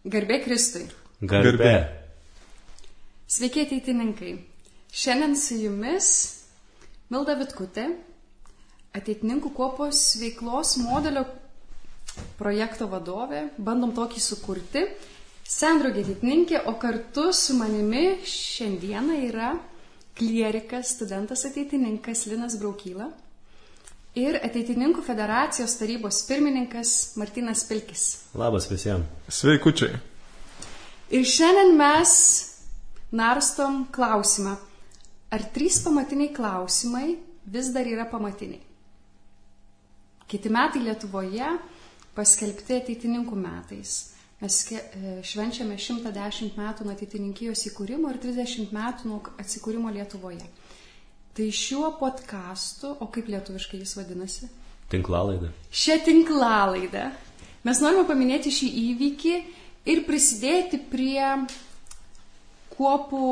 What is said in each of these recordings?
Garbė Kristui. Garbė. Sveiki ateitininkai. Šiandien su jumis Milda Vitkutė, ateitininkų kuopos veiklos modelio projekto vadovė. Bandom tokį sukurti. Sendraugė ateitininkė, o kartu su manimi šiandieną yra klierikas, studentas ateitininkas Linas Braukyla ir ateitininkų federacijos tarybos pirmininkas Martynas Pilkis. Labas visiems. Sveikučiai. Ir šiandien mes narstom klausimą, ar 3 pamatiniai klausimai vis dar yra pamatiniai. Kiti metai Lietuvoje paskelbti ateitininkų metais. Mes švenčiame 110 metų nuo ateitininkijos įkūrimo ir 30 metų nuo atsikūrimo Lietuvoje. Tai šiuo podcastu, o kaip lietuviškai jis vadinasi? Tinklalaida. Šią tinklalaidą mes norime paminėti šį įvykį ir prisidėti prie kuopų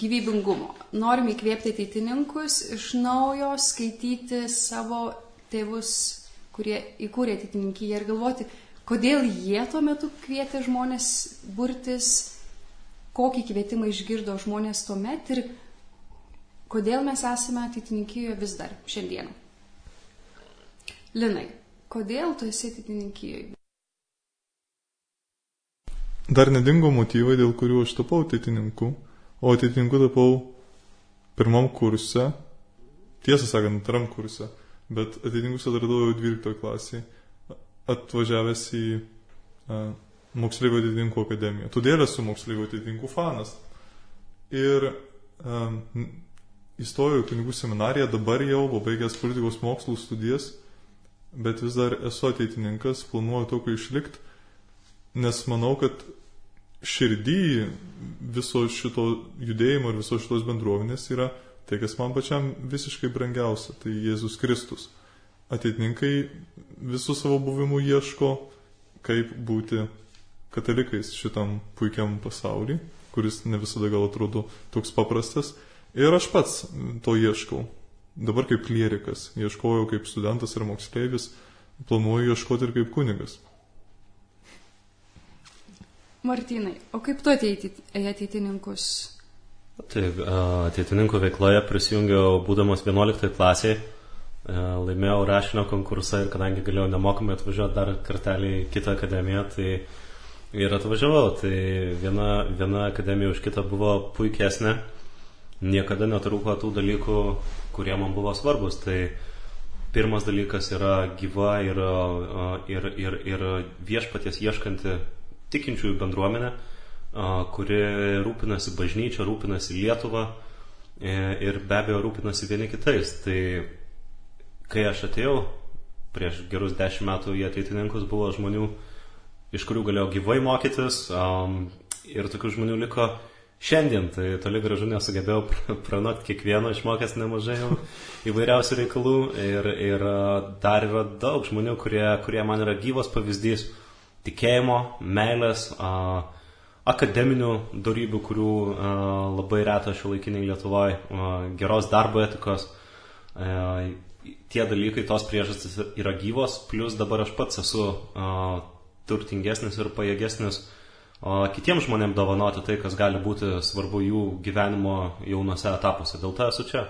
gyvybingumo. Norime įkvėpti ateitininkus iš naujo skaityti savo tėvus, kurie įkūrė ateitininkiją ir galvoti, kodėl jie tuo metu kvietė žmonės burtis, kokį kvietimą išgirdo žmonės tuomet ir kodėl mes esame ateitininkijoje vis dar šiandien. Linai, kodėl tu esi ateitininkijoje? Dar nedingo motyvai, dėl kurių aš tapau ateitininku, o ateitininku tapau pirmam kurse, tiesą sakant, antram kurse, bet ateitininkus atradau jau 12 klasėje, atvažiavęs į moksleivių ateitininkų akademiją. Todėl esu moksleivių ateitininkų fanas. Ir įstojau į kunigų seminariją, dabar jau pabaigęs politikos mokslų studijas, bet vis dar esu ateitininkas, planuoju tokio išlikti, nes manau, kad širdį viso šito judėjimo ir viso šitos bendruomenės yra tai, kas man pačiam visiškai brangiausia, tai Jėzus Kristus. Ateitininkai visų savo buvimų ieško, kaip būti katalikais šitam puikiam pasauliui, kuris ne visada gal atrodo toks paprastas. Ir aš pats to ieškau. Dabar kaip klierikas, ieškojau kaip studentas ir moksleivis, planuoju ieškoti ir kaip kunigas. Martynai, o kaip tu ateitininkus? Taip, ateitininkų veikloje prisijungiau būdamas 11 klasėje. Laimėjau rašinio konkursą ir kadangi galėjau nemokamai atvažiuoti dar kartelį į kitą akademiją, tai ir atvažiavau. Tai viena akademija už kitą buvo puikesnė. Niekada netrūko tų dalykų, kurie man buvo svarbus. Tai pirmas dalykas yra gyva ir viešpaties ieškanti tikinčiųjų bendruomenė, kuri rūpinasi bažnyčia, rūpinasi Lietuva ir be abejo rūpinasi vieni kitais. Tai kai aš atėjau prieš gerus 10 metų į ateitininkus, buvo žmonių, iš kurių galėjau gyvai mokytis, ir tokių žmonių liko šiandien. Tai toli gražu nesugebėjau pranokti kiekvieno, išmokęs nemažai įvairiausių reikalų ir dar yra daug žmonių, kurie man yra gyvas pavyzdys tikėjimo, meilės, akademinių dorybių, kurių labai reta šiuolaikiniai Lietuvoje, geros darbo etikos. Tie dalykai, tos priežastys yra gyvos, plus dabar aš pats esu turtingesnis ir pajėgesnis kitiems žmonėms dovanoti tai, kas gali būti svarbu jų gyvenimo jaunose etapuose. Dėl to esu čia.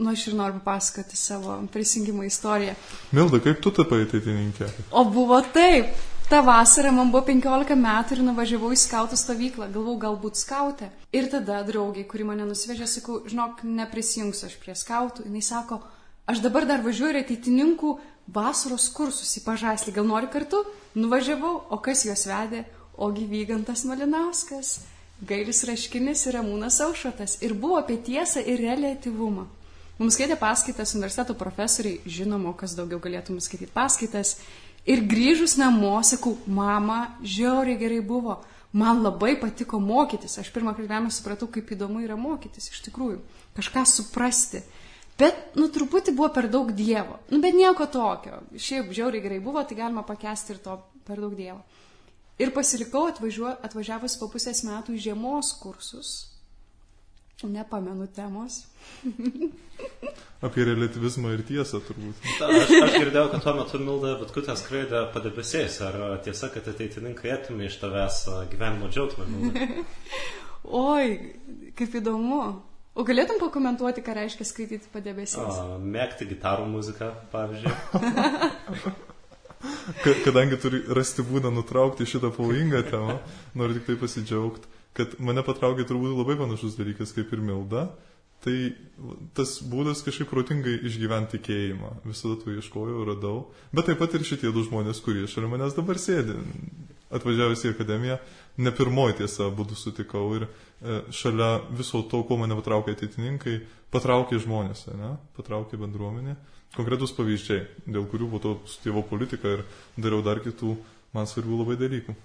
Aš ir noriu papasakoti savo prisijungimo istoriją. Milda, kaip tu tapai ateitininkė? O buvo taip. Ta vasara man buvo 15 metų ir nuvažiavau į skautų stovyklą. Galvau, galbūt skautė. Ir tada draugiai, kuri mane nusivežė, sakau, žinok, neprisijungsiu aš prie skautų. Jis sako, aš dabar dar važiuoju į ateitininkų vasaros kursus į Pažaislį. Gal nori kartu? Nuvažiavau, o kas juos vedė? Ogi Vygantas Malinauskas, Gailius Raškinis ir Ramūnas Aušrotas. Ir buvo apie tiesą ir reliatyvumą. Mums skaitė paskaitas universiteto profesoriai, žinoma, kas daugiau galėtų mums skaityti paskaitas. Ir grįžus namo, sakau, mama, žiauriai gerai buvo. Man labai patiko mokytis. Aš pirmą kartą supratau, kaip įdomu yra mokytis, iš tikrųjų. Kažką suprasti. Bet, truputį buvo per daug Dievo. Bet nieko tokio. Šiaip žiauriai gerai buvo, tai galima pakęsti ir to per daug Dievo. Ir pasilikau atvažiavus po pusės metų į žiemos kursus. Nepamenu temos. Apie relativizmą ir tiesą turbūt. Aš girdėjau, kad tuo metu Milda Vitkutė skraidė padebesiais. Ar tiesa, kad ateitininkai atimė iš tavęs gyvenimo džiaugsmą, Milda? Oi, kaip įdomu. O galėtum pakomentuoti, ką reiškia skaityti padebesiais? Mėgti gitarų muziką, pavyzdžiui. Kadangi turi rasti būdą nutraukti šitą pavojingą temą, noriu tik tai pasidžiaugti, kad mane patraukė turbūt labai panašus dalykas kaip ir Milda. Tai tas būdas kažkaip protingai išgyventi tikėjimą. Visada to ieškojau, radau. Bet taip pat ir šitie du žmonės, kurie šalia manęs dabar sėdi. Atvažiavęs į akademiją, ne pirmoji tiesa būdų sutikau. Ir šalia viso to, ko mane patraukė ateitininkai, patraukė žmonės, ne? Patraukė bendruomenė. Konkretus pavyzdžiai, dėl kurių po to studijavau politiką ir dariau dar kitų man svarbių labai dalykų.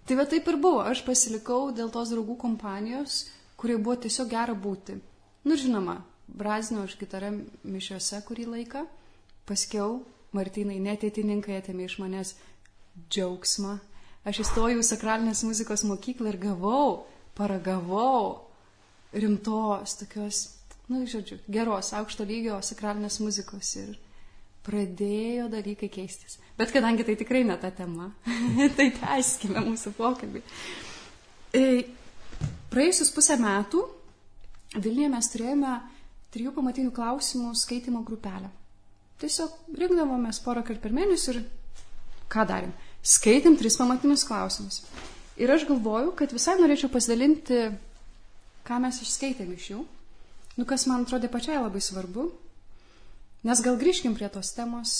Tai va taip ir buvo. Aš pasilikau dėl tos draugų kompanijos, kurie buvo tiesiog gera būti. Nu, žinoma, brazinau aš gitarą mišiuose kurį laiką. Paskiau Martynai neateitininkai atėmė iš manęs džiaugsmą. Aš įstojau į sakralinės muzikos mokyklą ir paragavau rimtos, tokios, nu, žodžiu, geros, aukšto lygio sakralinės muzikos ir pradėjo dalykai keistis. Bet kadangi tai tikrai ne ta tema, tai tęskime mūsų pokalbį. Praėjusius 5 metų Vilniuje mes turėjome 3 pamatinių klausimų skaitimo grupelę. Tiesiog rinkdavomės porą kartų per mėnesį ir ką darėm? Skaitėm 3 pamatinius klausimus. Ir aš galvoju, kad visai norėčiau pasidalinti, ką mes išskaitėm iš jų. Nu, kas man atrodė pačiai labai svarbu. Nes gal grįžkim prie tos temos,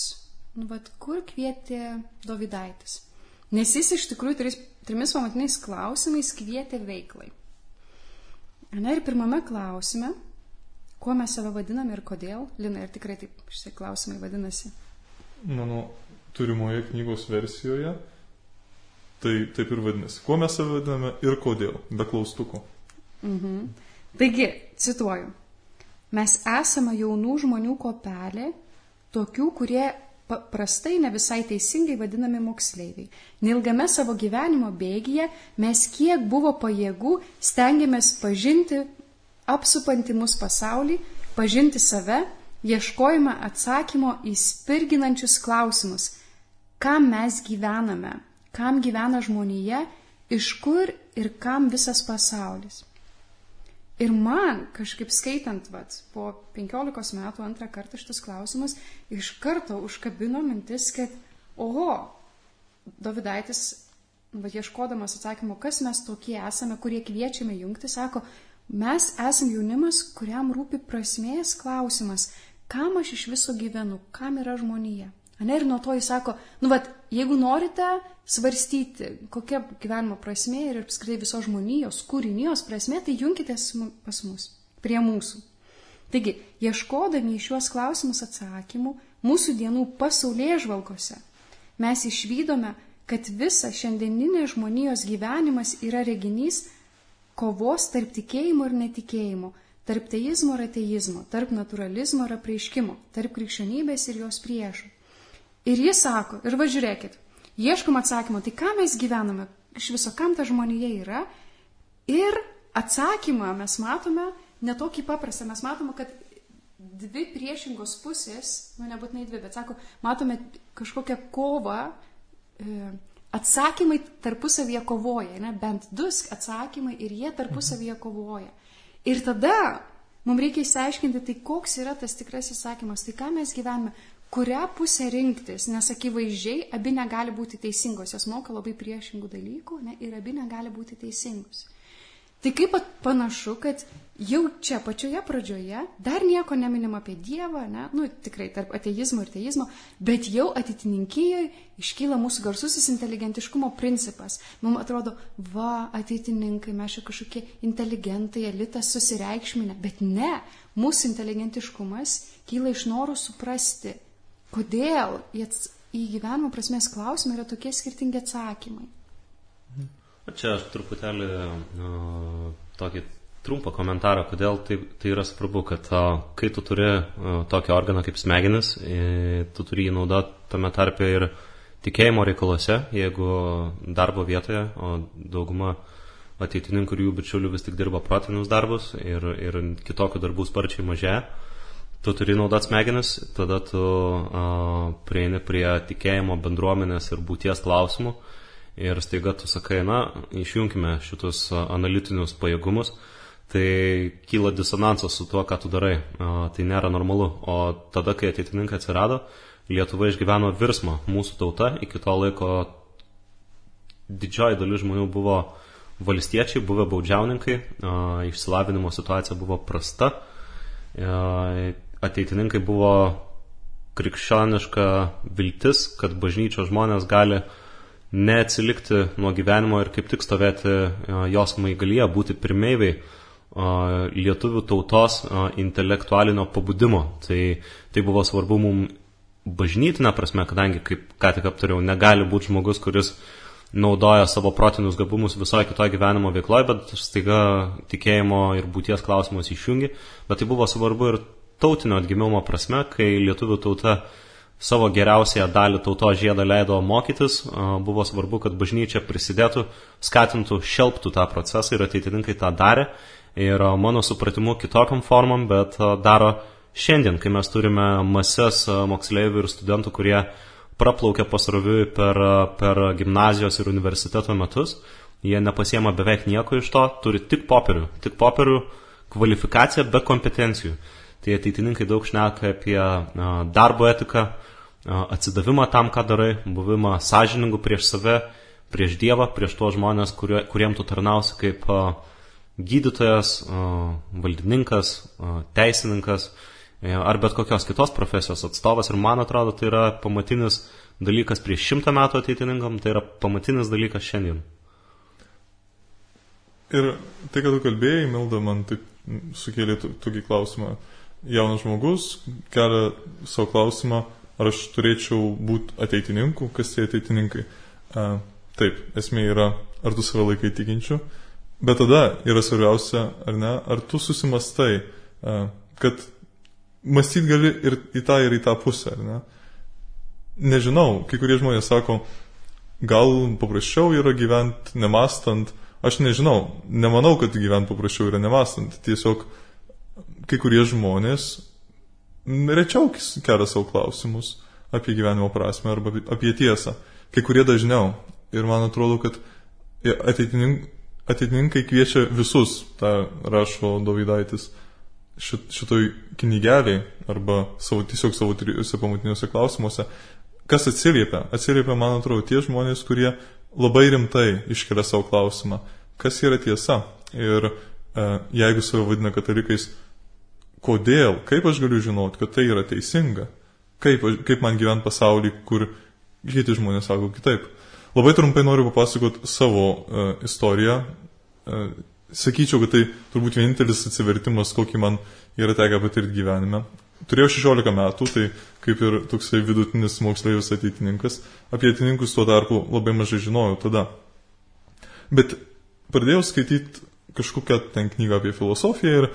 kur kvietė Dovydaitis. Nes jis iš tikrųjų 3 pamatiniais klausimais kvietė veiklai. Na ir pirmame klausime, kuo mes save vadiname ir kodėl. Lina, ir tikrai taip šitie klausimai vadinasi? Mano turimoje knygos versijoje tai taip ir vadinasi. Kuo mes save vadiname ir kodėl, be klaustuko. Taigi, cituoju. Mes esame jaunų žmonių kopelė, tokių, kurie paprastai ne visai teisingai vadinami moksleiviai. Neilgame savo gyvenimo bėgyje mes kiek buvo pajėgų stengiamės pažinti apsupantį mus pasaulį, pažinti save, ieškojame atsakymo į spirginančius klausimus. Kam mes gyvename? Kam gyvena žmonija? Iš kur ir kam visas pasaulis? Ir man, kažkaip skaitant, po 15 metų 2 kartą šitas klausimas, iš karto užkabino mintis, kad, Dovydaitis, ieškodamas atsakymo, kas mes tokie esame, kurie kviečiame jungti, sako, mes esame jaunimas, kuriam rūpi prasmės klausimas, kam aš iš viso gyvenu, kam yra žmonija. Ir nuo to jis sako, jeigu norite svarstyti, kokia gyvenimo prasmė ir apskritai visos žmonijos, kūrinijos prasmė, tai junkitės pas mus, prie mūsų. Taigi, ieškodami į šiuos klausimus atsakymų, mūsų dienų pasaulėžvalgose, mes išvydome, kad visa šiandieninė žmonijos gyvenimas yra reginys kovos tarp tikėjimo ir netikėjimo, tarp teizmo ir ateizmo, tarp naturalizmo ir apreiškimo, tarp krikščionybės ir jos priešų. Ir jis sako, ir žiūrėkit, ieškom atsakymo, tai ką mes gyvename, iš viso kam ta žmonija yra, ir atsakymą mes matome netokį paprastą, mes matome, kad 2 priešingos pusės, nebūtinai 2, bet sako, matome kažkokią kovą, atsakymai tarpusavyje kovoja, bent 2 atsakymai ir jie tarpusavyje kovoja. Ir tada mums reikia išsiaiškinti, tai koks yra tas tikras įsakymas, tai ką mes gyvename, kurią pusę rinktis, nes akivaizdžiai abi negali būti teisingos, jos moka labai priešingų dalykų, ir abi negali būti teisingos. Tai kaip panašu, kad jau čia pačioje pradžioje dar nieko neminim apie Dievą, tikrai tarp ateizmo ir teizmo, bet jau ateitininkijoje iškyla mūsų garsusis inteligentiškumo principas. Mums atrodo, ateitininkai, mes čia kažkokie inteligentai, elitas susireikšminę, bet ne, mūsų inteligentiškumas kyla iš noro suprasti, kodėl į gyvenimo prasmės klausimą yra tokie skirtingi atsakymai. Čia aš truputėlį tokį trumpą komentarą, kodėl tai yra svarbu, kad kai tu turi tokį organą kaip smegenis, tu turi jį naudoti tame tarpe ir tikėjimo reikaluose, jeigu darbo vietoje, o dauguma ateitininkų ir jų bičiulių vis tik dirba protinius darbus ir kitokių darbų sparčiai mažėja. Tu turi naudoti smegenis, tada tu prieini prie tikėjimo, bendruomenės ir būties klausimų ir staiga tu sakai, išjungkime šitus analitinius pajėgumus, tai kyla disonansas su tuo, ką tu darai. Tai nėra normalu. O tada, kai ateitininkai atsirado, Lietuva išgyveno virsmą. Mūsų tauta iki to laiko didžioji dalis žmonių buvo valstiečiai, buvę baudžiauninkai, išsilavinimo situacija buvo prasta, ateitininkai buvo krikščioniška viltis, kad bažnyčios žmonės gali neatsilikti nuo gyvenimo ir kaip tik stovėti jos maigalyje, būti pirmeiviai lietuvių tautos intelektualinio pabudimo. Tai buvo svarbu mums bažnytinė prasme, kadangi, kaip ką tik aptariau, negali būti žmogus, kuris naudoja savo protinius gabumus visoje kitoje gyvenimo veikloje, bet staiga tikėjimo ir būties klausimus išjungi. Bet tai buvo svarbu ir tautinio atgimimo prasme, kai lietuvių tauta savo geriausiąją dalį tautos žiedą leido mokytis, buvo svarbu, kad bažnyčia prisidėtų, skatintų, šelptų tą procesą ir ateitininkai tą darė. Ir mano supratimu kitokiam formam, bet daro šiandien, kai mes turime mases moksleivių ir studentų, kurie praplaukia pasroviui per gimnazijos ir universiteto metus. Jie nepasiema beveik nieko iš to, turi tik popierių, kvalifikaciją be kompetencijų. Tai ateitininkai daug šneka apie darbo etiką, atsidavimą tam, ką darai, buvimą sąžiningų prieš save, prieš Dievą, prieš tuos žmonės, kuriem tu tarnausi kaip gydytojas, valdininkas, teisininkas ar bet kokios kitos profesijos atstovas. Ir man atrodo, tai yra pamatinis dalykas prieš 100 metų ateitininkam, tai yra pamatinis dalykas šiandien. Ir tai, kad tu kalbėjai, Milda, man taip sukėlė tokį klausimą. Jaunas žmogus kelia savo klausimą, ar aš turėčiau būti ateitininku, kas tie ateitininkai. Taip, esmė yra, ar tu save laikai tikinčiu, bet tada yra svarbiausia, ar ne, ar tu susimastai, kad mąstyti gali ir į tą pusę, ar ne. Nežinau, kai kurie žmonės sako, gal paprasčiau yra gyventi nemastant. Aš nežinau, nemanau, kad gyventi paprasčiau yra nemastant. Tiesiog kai kurie žmonės rečiau kelia savo klausimus apie gyvenimo prasmę arba apie tiesą. Kai kurie dažniau. Ir man atrodo, kad ateitininkai kviečia visus, tą rašo Dovydaitis, šitoj knygeliai arba tiesiog savo trijose pamatiniuose klausimuose. Kas atsiliepia? Atsiliepia, man atrodo, tie žmonės, kurie labai rimtai iškelia savo klausimą, kas yra tiesa. Ir jeigu save vadina katalikais, kodėl, kaip aš galiu žinoti, kad tai yra teisinga, kaip man gyventi pasaulį, kur kiti žmonės sako kitaip. Labai trumpai noriu papasakoti savo istoriją. Sakyčiau, kad tai turbūt vienintelis atsivertimas, kokį man yra tekę patirti gyvenime. Turėjau 16 metų, tai kaip ir toksai vidutinis moksleivis ateitininkas. Apie ateitininkus tuo tarpu labai mažai žinojau tada. Bet pradėjau skaityti kažkokią ten knygą apie filosofiją ir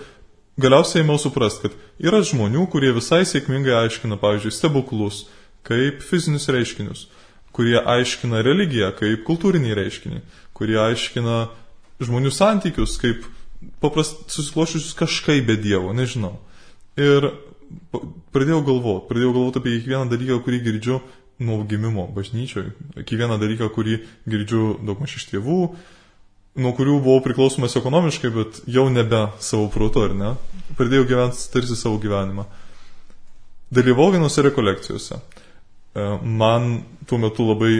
galiausiai ėmiau suprasti, kad yra žmonių, kurie visai sėkmingai aiškina, pavyzdžiui, stebuklus kaip fizinius reiškinius, kurie aiškina religiją kaip kultūrinį reiškinį, kurie aiškina žmonių santykius kaip susikloščiusius kažkaip be Dievo, nežinau. Ir pradėjau galvoti apie kiekvieną dalyką, kurį girdžiu nuo gimimo bažnyčioje, kiekvieną dalyką, kurį girdžiu daugmaž iš tėvų, nuo kurių buvau priklausomas ekonomiškai, bet jau nebe savo protu, ar ne? Pradėjau gyventi tarsi savo gyvenimą. Dalyvau vienose rekolekcijose. Man tuo metu labai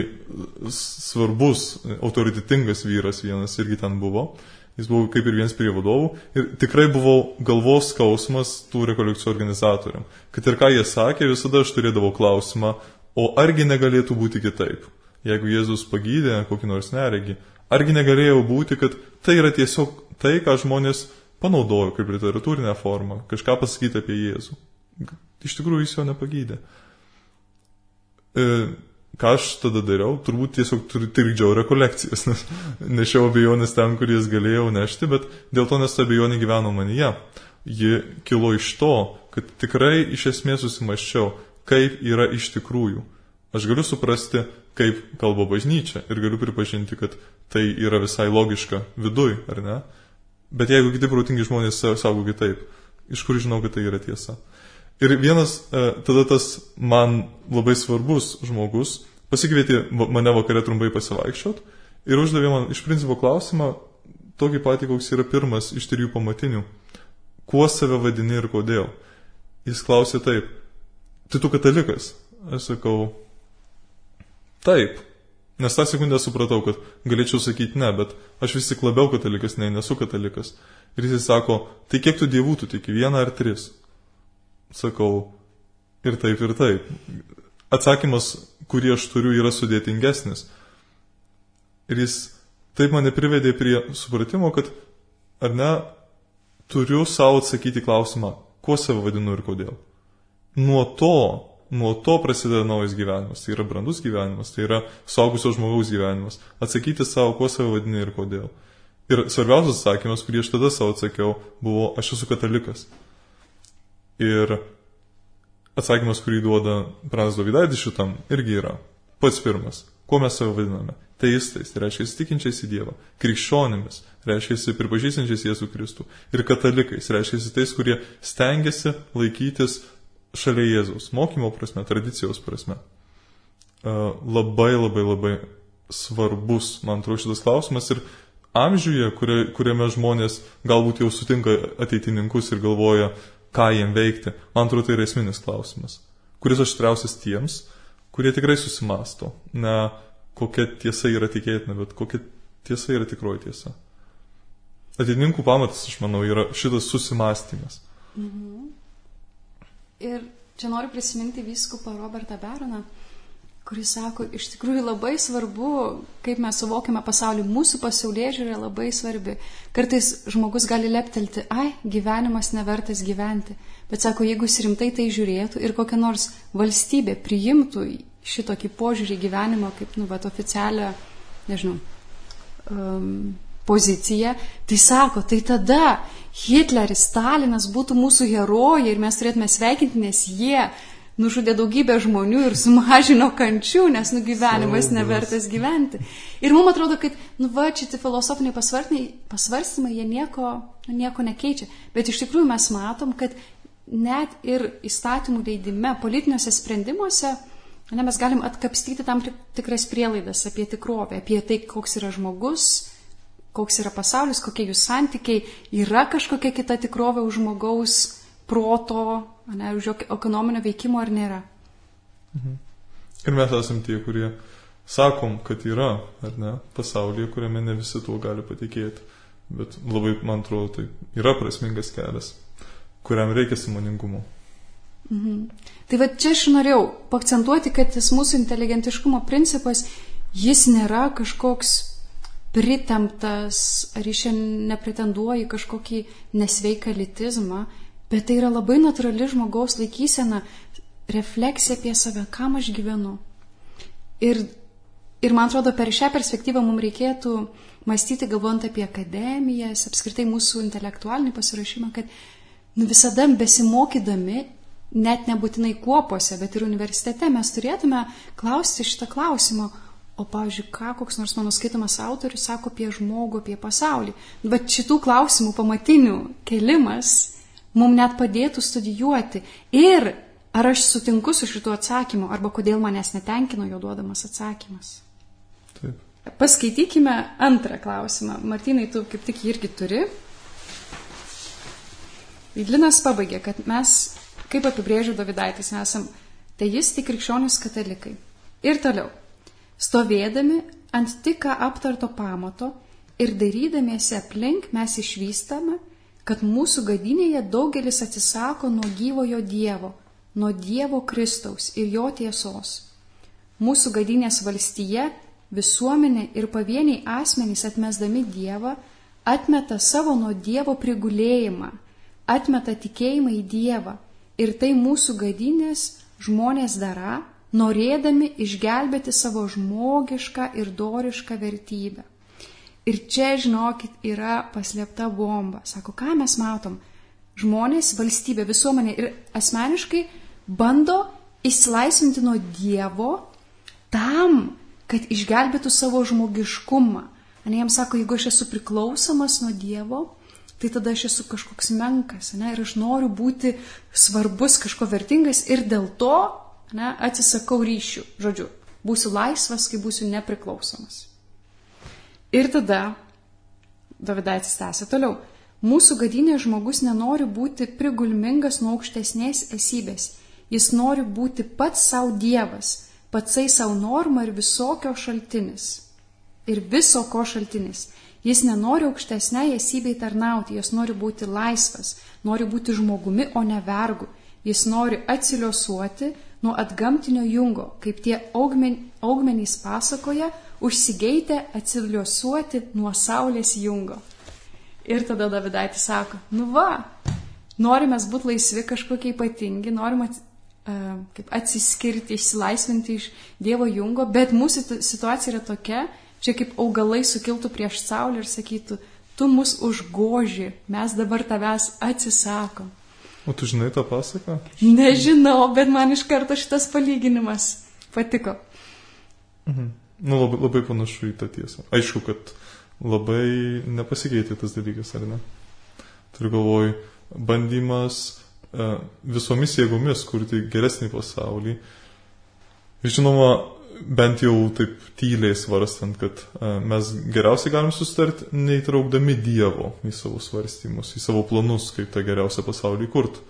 svarbus, autoritetingas vyras vienas irgi ten buvo. Jis buvo kaip ir vienas prie vadovų. Ir tikrai buvau galvos skausmas tų rekolekcijų organizatoriam. Kad ir ką jie sakė, visada aš turėdavau klausimą, o argi negalėtų būti kitaip? Jeigu Jėzus pagydė kokį nors neregį, argi negalėjo būti, kad tai yra tiesiog tai, ką žmonės panaudojo kaip literatūrinę formą, kažką pasakyti apie Jėzų. Iš tikrųjų jis jo nepagydė. Ką aš tada dariau? Turbūt tiesiog trikdžiau rekolekcijas, nes nešiau abejonės ten, kur jas galėjau nešti, bet dėl to, nes ta abejonė gyveno manyje. Ji kilo iš to, kad tikrai iš esmės susimaščiau, kaip yra iš tikrųjų. Aš galiu suprasti, kaip kalba bažnyčia ir galiu pripažinti, kad tai yra visai logiška viduj, ar ne? Bet jeigu kiti protingi žmonės sako kitaip, iš kur žinau, kad tai yra tiesa? Ir vienas, tada tas man labai svarbus žmogus pasikvietė mane vakare trumpai pasivaikščiot ir uždavė man iš principo klausimą, tokį patį, koks yra pirmas iš 3 pamatinių. Kuo save vadini ir kodėl? Jis klausė taip, tai tu katalikas? Aš sakau, taip. Nes tą sekundę supratau, kad galėčiau sakyti ne, bet aš vis tik labiau katalikas, nesu katalikas. Ir jis sako, tai kiek tu dievų tu tiki, 1 ar 3? Sakau, ir taip, ir taip. Atsakymas, kurį aš turiu, yra sudėtingesnis. Ir jis taip mane privedė prie supratimo, kad, ar ne, turiu savo atsakyti klausimą, kuo save vadinu ir kodėl. Nuo to prasideda naujas gyvenimas, tai yra brandus gyvenimas, tai yra suaugusio žmogaus gyvenimas. Atsakyti savo, kuo save vadini ir kodėl. Ir svarbiausias atsakymas, kurį aš tada savo atsakiau, buvo, aš esu katalikas. Ir atsakymas, kurį duoda Pranas Dovydaitis šitam, irgi yra pats pirmas. Kuo mes save vadiname? Teistais, tai reiškia tikinčiais į Dievą. Krikščionimis, reiškia pripažįstančiais Jėzų Kristų. Ir katalikais, reiškia tais, kurie stengiasi laikytis šalia Jėzaus. Mokymo prasme, tradicijos prasme. Labai, labai, labai svarbus, man atrodo, šitas klausimas. Ir amžiuje, kuriame žmonės galbūt jau sutinka ateitininkus ir galvoja, ką jiem veikti, man atrodo, tai yra esminis klausimas, kuris aštriausias tiems, kurie tikrai susimasto. Ne kokia tiesa yra tikėtina, bet kokia tiesa yra tikroji tiesa. Ateitininkų pamatas, aš manau, yra šitas susimastymas. Mhm. Ir čia noriu prisiminti vyskupą Robertą Beroną, kuris sako, iš tikrųjų labai svarbu, kaip mes suvokiame pasaulį, mūsų pasaulėžiūra labai svarbi. Kartais žmogus gali leptelti, gyvenimas nevertas gyventi, bet sako, jeigu jis rimtai tai žiūrėtų ir kokia nors valstybė priimtų šitokį požiūrį gyvenimo kaip, oficialią, nežinau, poziciją, tai sako, tai tada Hitleris, Stalinas būtų mūsų herojai ir mes turėtume sveikinti, nes jie nužudė daugybę žmonių ir sumažino kančių, nes gyvenimas nevertas gyventi. Ir mums atrodo, kad šitie filosofiniai pasvarstymai, jie nieko nekeičia. Bet iš tikrųjų mes matom, kad net ir įstatymų leidime, politiniuose sprendimuose, mes galim atkapstyti tam tikras prielaidas apie tikrovę, apie tai, koks yra žmogus, koks yra pasaulis, kokie jų santykiai, yra kažkokia kita tikrovė už žmogaus proto, už ekonominio veikimo ar nėra. Mhm. Ir mes esam tie, kurie sakom, kad yra, ar ne, pasaulyje, kuriame ne visi tuo gali patikėti. Bet labai, man atrodo, tai yra prasmingas kelias, kuriam reikia sąmoningumo. Mhm. Tai va čia aš norėjau paakcentuoti, kad tas mūsų inteligentiškumo principas, jis nėra kažkoks pritemptas, ar iš čia nepretenduoja kažkokį nesveiką elitizmą, bet tai yra labai natūrali žmogaus laikysena, refleksija apie save, kam aš gyvenu. Ir man atrodo, per šią perspektyvą mums reikėtų mąstyti, galvojant apie akademijas, apskritai mūsų intelektualinį pasiruošimą, kad visada besimokydami, net nebūtinai kuopose, bet ir universitete, mes turėtume klausti šitą klausimą, o, pavyzdžiui, ką koks nors mano skaitomas autorius sako apie žmogų, apie pasaulį. Bet šitų klausimų pamatinių kelimas mums net padėtų studijuoti. Ir ar aš sutinku su šitų atsakymu, arba kodėl manęs netenkino jo duodamas atsakymas. Taip. Paskaitykime antrą klausimą. Martynai, tu kaip tik irgi turi. Linas pabaigė, kad mes, kaip apibrėžė Dovydaitis, esam teisti krikščionys katalikai. Ir toliau. Stovėdami ant tik ką aptarto pamato ir dairydamiesi aplink mes išvystame, kad mūsų gadynėje daugelis atsisako nuo gyvojo Dievo, nuo Dievo Kristaus ir jo tiesos. Mūsų gadynės valstyje visuomenė ir pavieniai asmenys atmesdami Dievą atmeta savo nuo Dievo prigulėjimą, atmeta tikėjimą į Dievą ir tai mūsų gadynės žmonės dara, norėdami išgelbėti savo žmogišką ir dorišką vertybę. Ir čia, žinokit, yra paslėpta bomba. Sako, ką mes matom? Žmonės, valstybė, visuomenė ir asmeniškai bando išsilaisvinti nuo Dievo tam, kad išgelbėtų savo žmogiškumą. Ne, jam sako, jeigu aš esu priklausomas nuo Dievo, tai tada aš esu kažkoks menkas, ne, ir aš noriu būti svarbus, kažko vertingas ir dėl to, ne, atsisakau ryšių. Žodžiu, būsiu laisvas, kai būsiu nepriklausomas. Ir tada Dovidaitis tęsia toliau. Mūsų gadynės žmogus nenori būti prigulmingas nuo aukštesnės esybės. Jis nori būti pats savo Dievas, patsai savo norma ir visokio šaltinis. Ir viso ko šaltinis. Jis nenori aukštesnei esybei tarnauti, jis nori būti laisvas, nori būti žmogumi, o ne vergu. Jis nori atsiliosuoti nuo atgamtinio jungo, kaip tie augmenys pasakoja, užsigeitę atsiliosuoti nuo saulės jungo. Ir tada Dovidaitis sako, nu va, norime būti laisvi, kažkokie ypatingi, norime kaip atsiskirti, išsilaisvinti iš Dievo jungo, bet mūsų situacija yra tokia, čia kaip augalai sukiltų prieš saulę ir sakytų, tu mus užgoži, mes dabar tavęs atsisakom. O tu žinai tą pasaką? Nežinau, bet man iš karto šitas palyginimas patiko. Nu, labai panašu į tą tiesą. Aišku, kad labai nepasikeitė tas dalykas, ar ne? Turiu galvoj, bandymas visomis jėgomis kurti geresnį pasaulį. Žinoma, bent jau taip tyliai svarstant, kad mes geriausiai galim susitarti, neįtraukdami Dievo į savo svarstymus, į savo planus, kaip tą geriausią pasaulį kurti.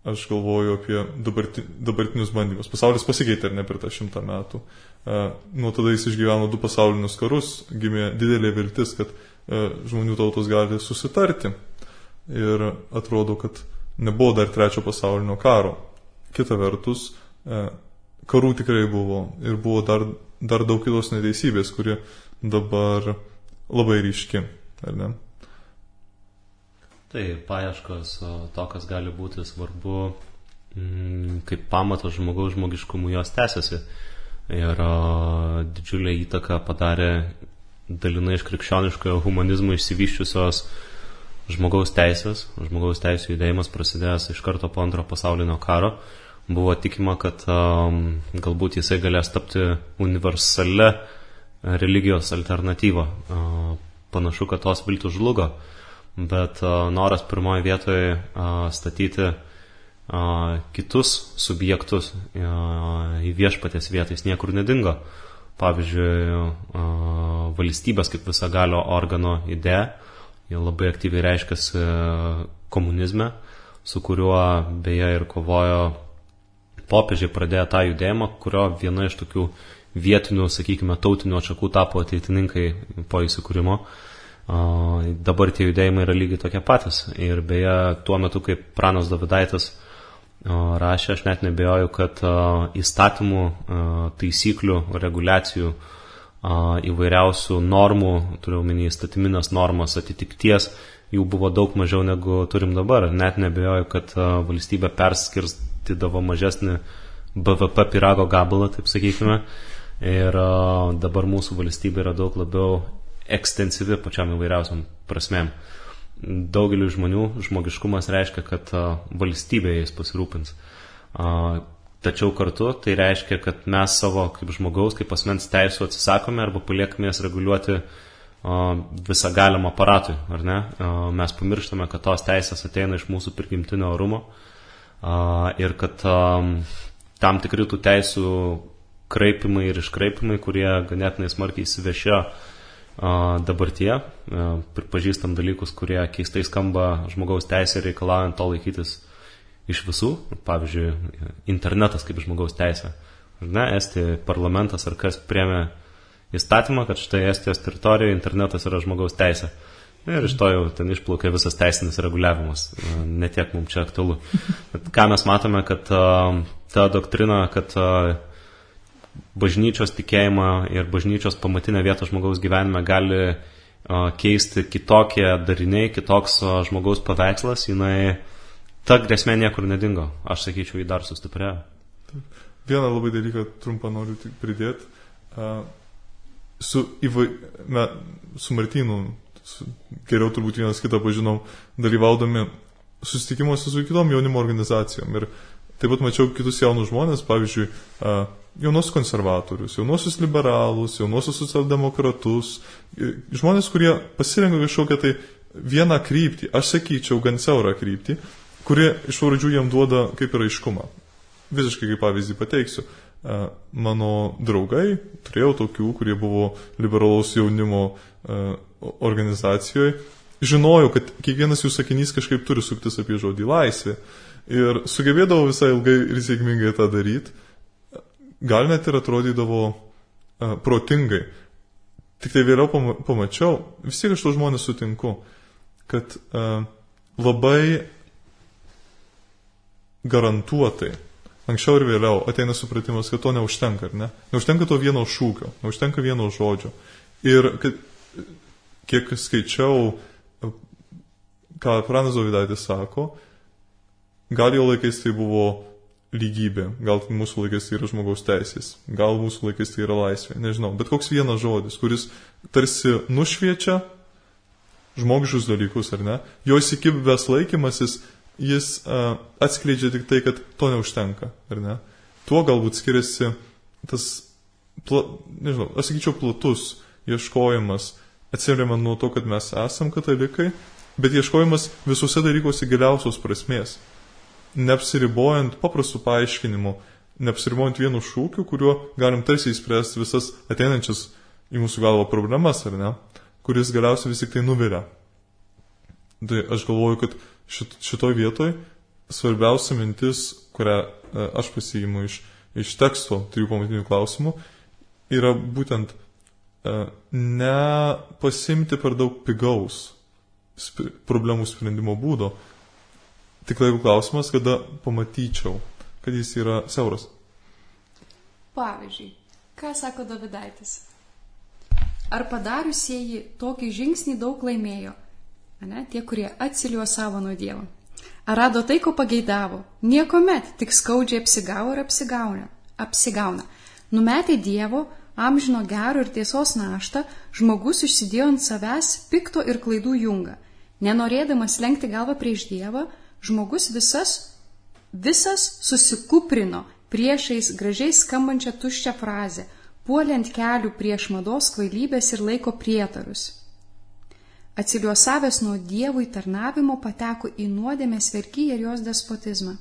Aš galvoju apie dabartinius bandymus. Pasaulis pasikeitė ar ne per tą 100 metų. Nuo tada jis išgyveno 2 pasaulinius karus, gimė didelė viltis, kad žmonių tautos gali susitarti. Ir atrodo, kad nebuvo dar 3 pasaulinio karo. Kita vertus, karų tikrai buvo ir buvo dar daug kitos neteisybės, kuri dabar labai ryški, ar ne? Tai paieškos to, kas gali būti svarbu, kaip pamatas žmogaus žmogiškumų, jos tęsiasi. Ir didžiulę įtaką padarė dalinai iš krikščioniškojo humanizmo išsivyščiusios žmogaus teisės. Žmogaus teisų judėjimas prasidėjęs iš karto po 2 pasaulinio karo. Buvo tikima, kad galbūt jisai galės tapti universalia religijos alternatyva. Panašu, kad tos viltis žlugo, bet noras pirmoje vietoje statyti kitus subjektus į viešpaties vietą jis niekur nedingo. Pavyzdžiui, valstybės kaip visagalio organo idėja, jie labai aktyviai reiškiasi komunizme, su kuriuo beje ir kovojo popiežiai, pradėjo tą judėjimą, kurio viena iš tokių vietinių, sakykime, tautinių atšakų tapo ateitininkai po įsikūrimo. Dabar tie judėjimai yra lygiai tokie patys. Ir beje, tuo metu, kaip pranas Dovidaitis rašė, aš net nebejoju, kad įstatymų, taisyklių, reguliacijų, įvairiausių normų, turiu omeny įstatyminės normas, atitikties, jų buvo daug mažiau negu turim dabar. Net nebejoju, kad valstybė perskirstydavo mažesnį BVP pyrago gabalą, taip sakykime. Ir dabar mūsų valstybė yra daug labiau ekstensyvi pačiam įvairiausiam prasmėm. Daugeliu žmonių žmogiškumas reiškia, kad valstybė jais pasirūpins. Tačiau kartu tai reiškia, kad mes savo kaip žmogaus, kaip asmens teisų atsisakome arba paliekame jas reguliuoti visą galimą aparatui, ar ne? Mes pamirštame, kad tos teisės ateina iš mūsų prigimtinio orumo ir kad tam tikri tų teisų kraipimai ir iškraipimai, kurie ganėtinai smarkiai įsivešėjo dabartyje, pripažįstam dalykus, kurie keistai skamba žmogaus teisė reikalaujant to laikytis iš visų, pavyzdžiui, internetas kaip žmogaus teisė. Ne, Estijos parlamentas ar kas priėmė įstatymą, kad štai Estijos teritorijoje internetas yra žmogaus teisė. Ir iš to jau ten išplaukė visas teisinis reguliavimas. Netiek mums čia aktualu. Bet ką mes matome, kad ta doktrina, kad bažnyčios tikėjimą ir bažnyčios pamatinę vietą žmogaus gyvenime gali keisti kitokie dariniai, kitoks žmogaus paveikslas, jinai ta grėsmė niekur nedingo. Aš sakyčiau, jį dar sustiprėjo. Vieną labai dalyką trumpą noriu tik pridėti. Su Martynu, geriau turbūt vienas kitą pažinom, dalyvaudami susitikimuose su kitom jaunimo organizacijom. Ir taip pat mačiau kitus jaunus žmonės, pavyzdžiui, jaunos konservatorius, jaunosius liberalus, jaunosius socialdemokratus, žmonės, kurie pasirenka kažkokią tai vieną kryptį, aš sakyčiau, gan siaurą kryptį, kuri iš pradžių jam duoda kaip ir aiškumą. Visiškai kaip pavyzdį pateiksiu. Mano draugai, turėjau tokių, kurie buvo liberalaus jaunimo organizacijoje, žinojau, kad kiekvienas jų sakinys kažkaip turi suktis apie žodį laisvė. Ir sugebėdavo visai ilgai ir sėkmingai tą daryti. Gal net ir atrodydavo protingai. Tik tai vėliau pamačiau, vis tiek aš to žmonės sutinku, kad labai garantuotai, anksčiau ir vėliau ateina supratimas, kad to neužtenka, ar ne? Neužtenka to vieno šūkio, neužtenka vieno žodžio. Ir kiek skaičiau, ką Pranas Dovydaitis sako, gal jo laikais tai buvo lygybė, gal mūsų laikais tai yra žmogaus teisės, gal mūsų laikais tai yra laisvė, nežinau, bet koks vienas žodis, kuris tarsi nušviečia žmogiškus dalykus, ar ne, jo įsikibęs laikymasis, jis atskleidžia tik tai, kad to neužtenka, ar ne. Tuo galbūt skiriasi tas, nežinau, aš sakyčiau, platus ieškojimas, atsiremiant nuo to, kad mes esam katalikai, bet ieškojimas visuose dalykuose giliausios prasmės. Neapsiribojant paprastų paaiškinimų, neapsiribojant vienu šūkiu, kuriuo galim tarsi įspręsti visas ateinančias į mūsų galvą problemas, ar ne, kuris galiausiai vis tik tai nuvilia. Tai aš galvoju, kad šitoj vietoj svarbiausia mintis, kurią aš pasiimu iš teksto 3 pamatinių klausimų, yra būtent nepasimti per daug pigaus problemų sprendimo būdo. Tik laiko klausimas, kada pamatyčiau, kad jis yra siauras. Pavyzdžiui, ką sako Dovydaitis? Ar padariusieji tokį žingsnį daug laimėjo? Ne? Tie, kurie atsiliuosavo nuo Dievo. Ar rado tai, ko pageidavo? Niekuomet, tik skaudžiai apsigavo ir apsigauna. Numetė Dievo, amžino gero ir tiesos naštą, žmogus užsidėjo ant savęs pikto ir klaidų jungą. Nenorėdamas lenkti galvą prieš Dievą, žmogus visas susikuprino priešais gražiai skambančią tuščią frazę, puolė ant kelių prieš mados kvailybės ir laiko prietarus. Atsiliuosavęs nuo Dievui tarnavimo pateko į nuodėmės vergyją ir jos despotizmą.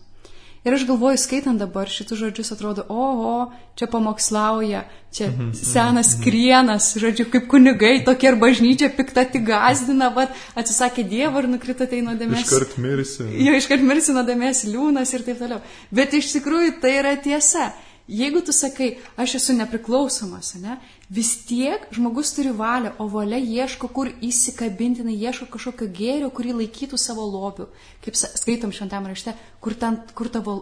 Ir aš galvoju, skaitant dabar šitus žodžius, atrodo, oho, čia pamokslauja, čia senas krienas, žodžiu, kaip kunigai, tokie ir bažnyčia pikta tik gazdina, atsisakė Dievo ir nukrito tai nuodėmės. Iškart mirsi. Jo, iškart mirsi nuodėmės liūnas ir taip toliau. Bet iš tikrųjų tai yra tiesa. Jeigu tu sakai, aš esu nepriklausomas, ne, vis tiek žmogus turi valią, o valia ieško, kur įsikabintinai, ieško kažkokio gėrio, kurį laikytų savo lobiu. Kaip skaitom šventame rašte, kur tavo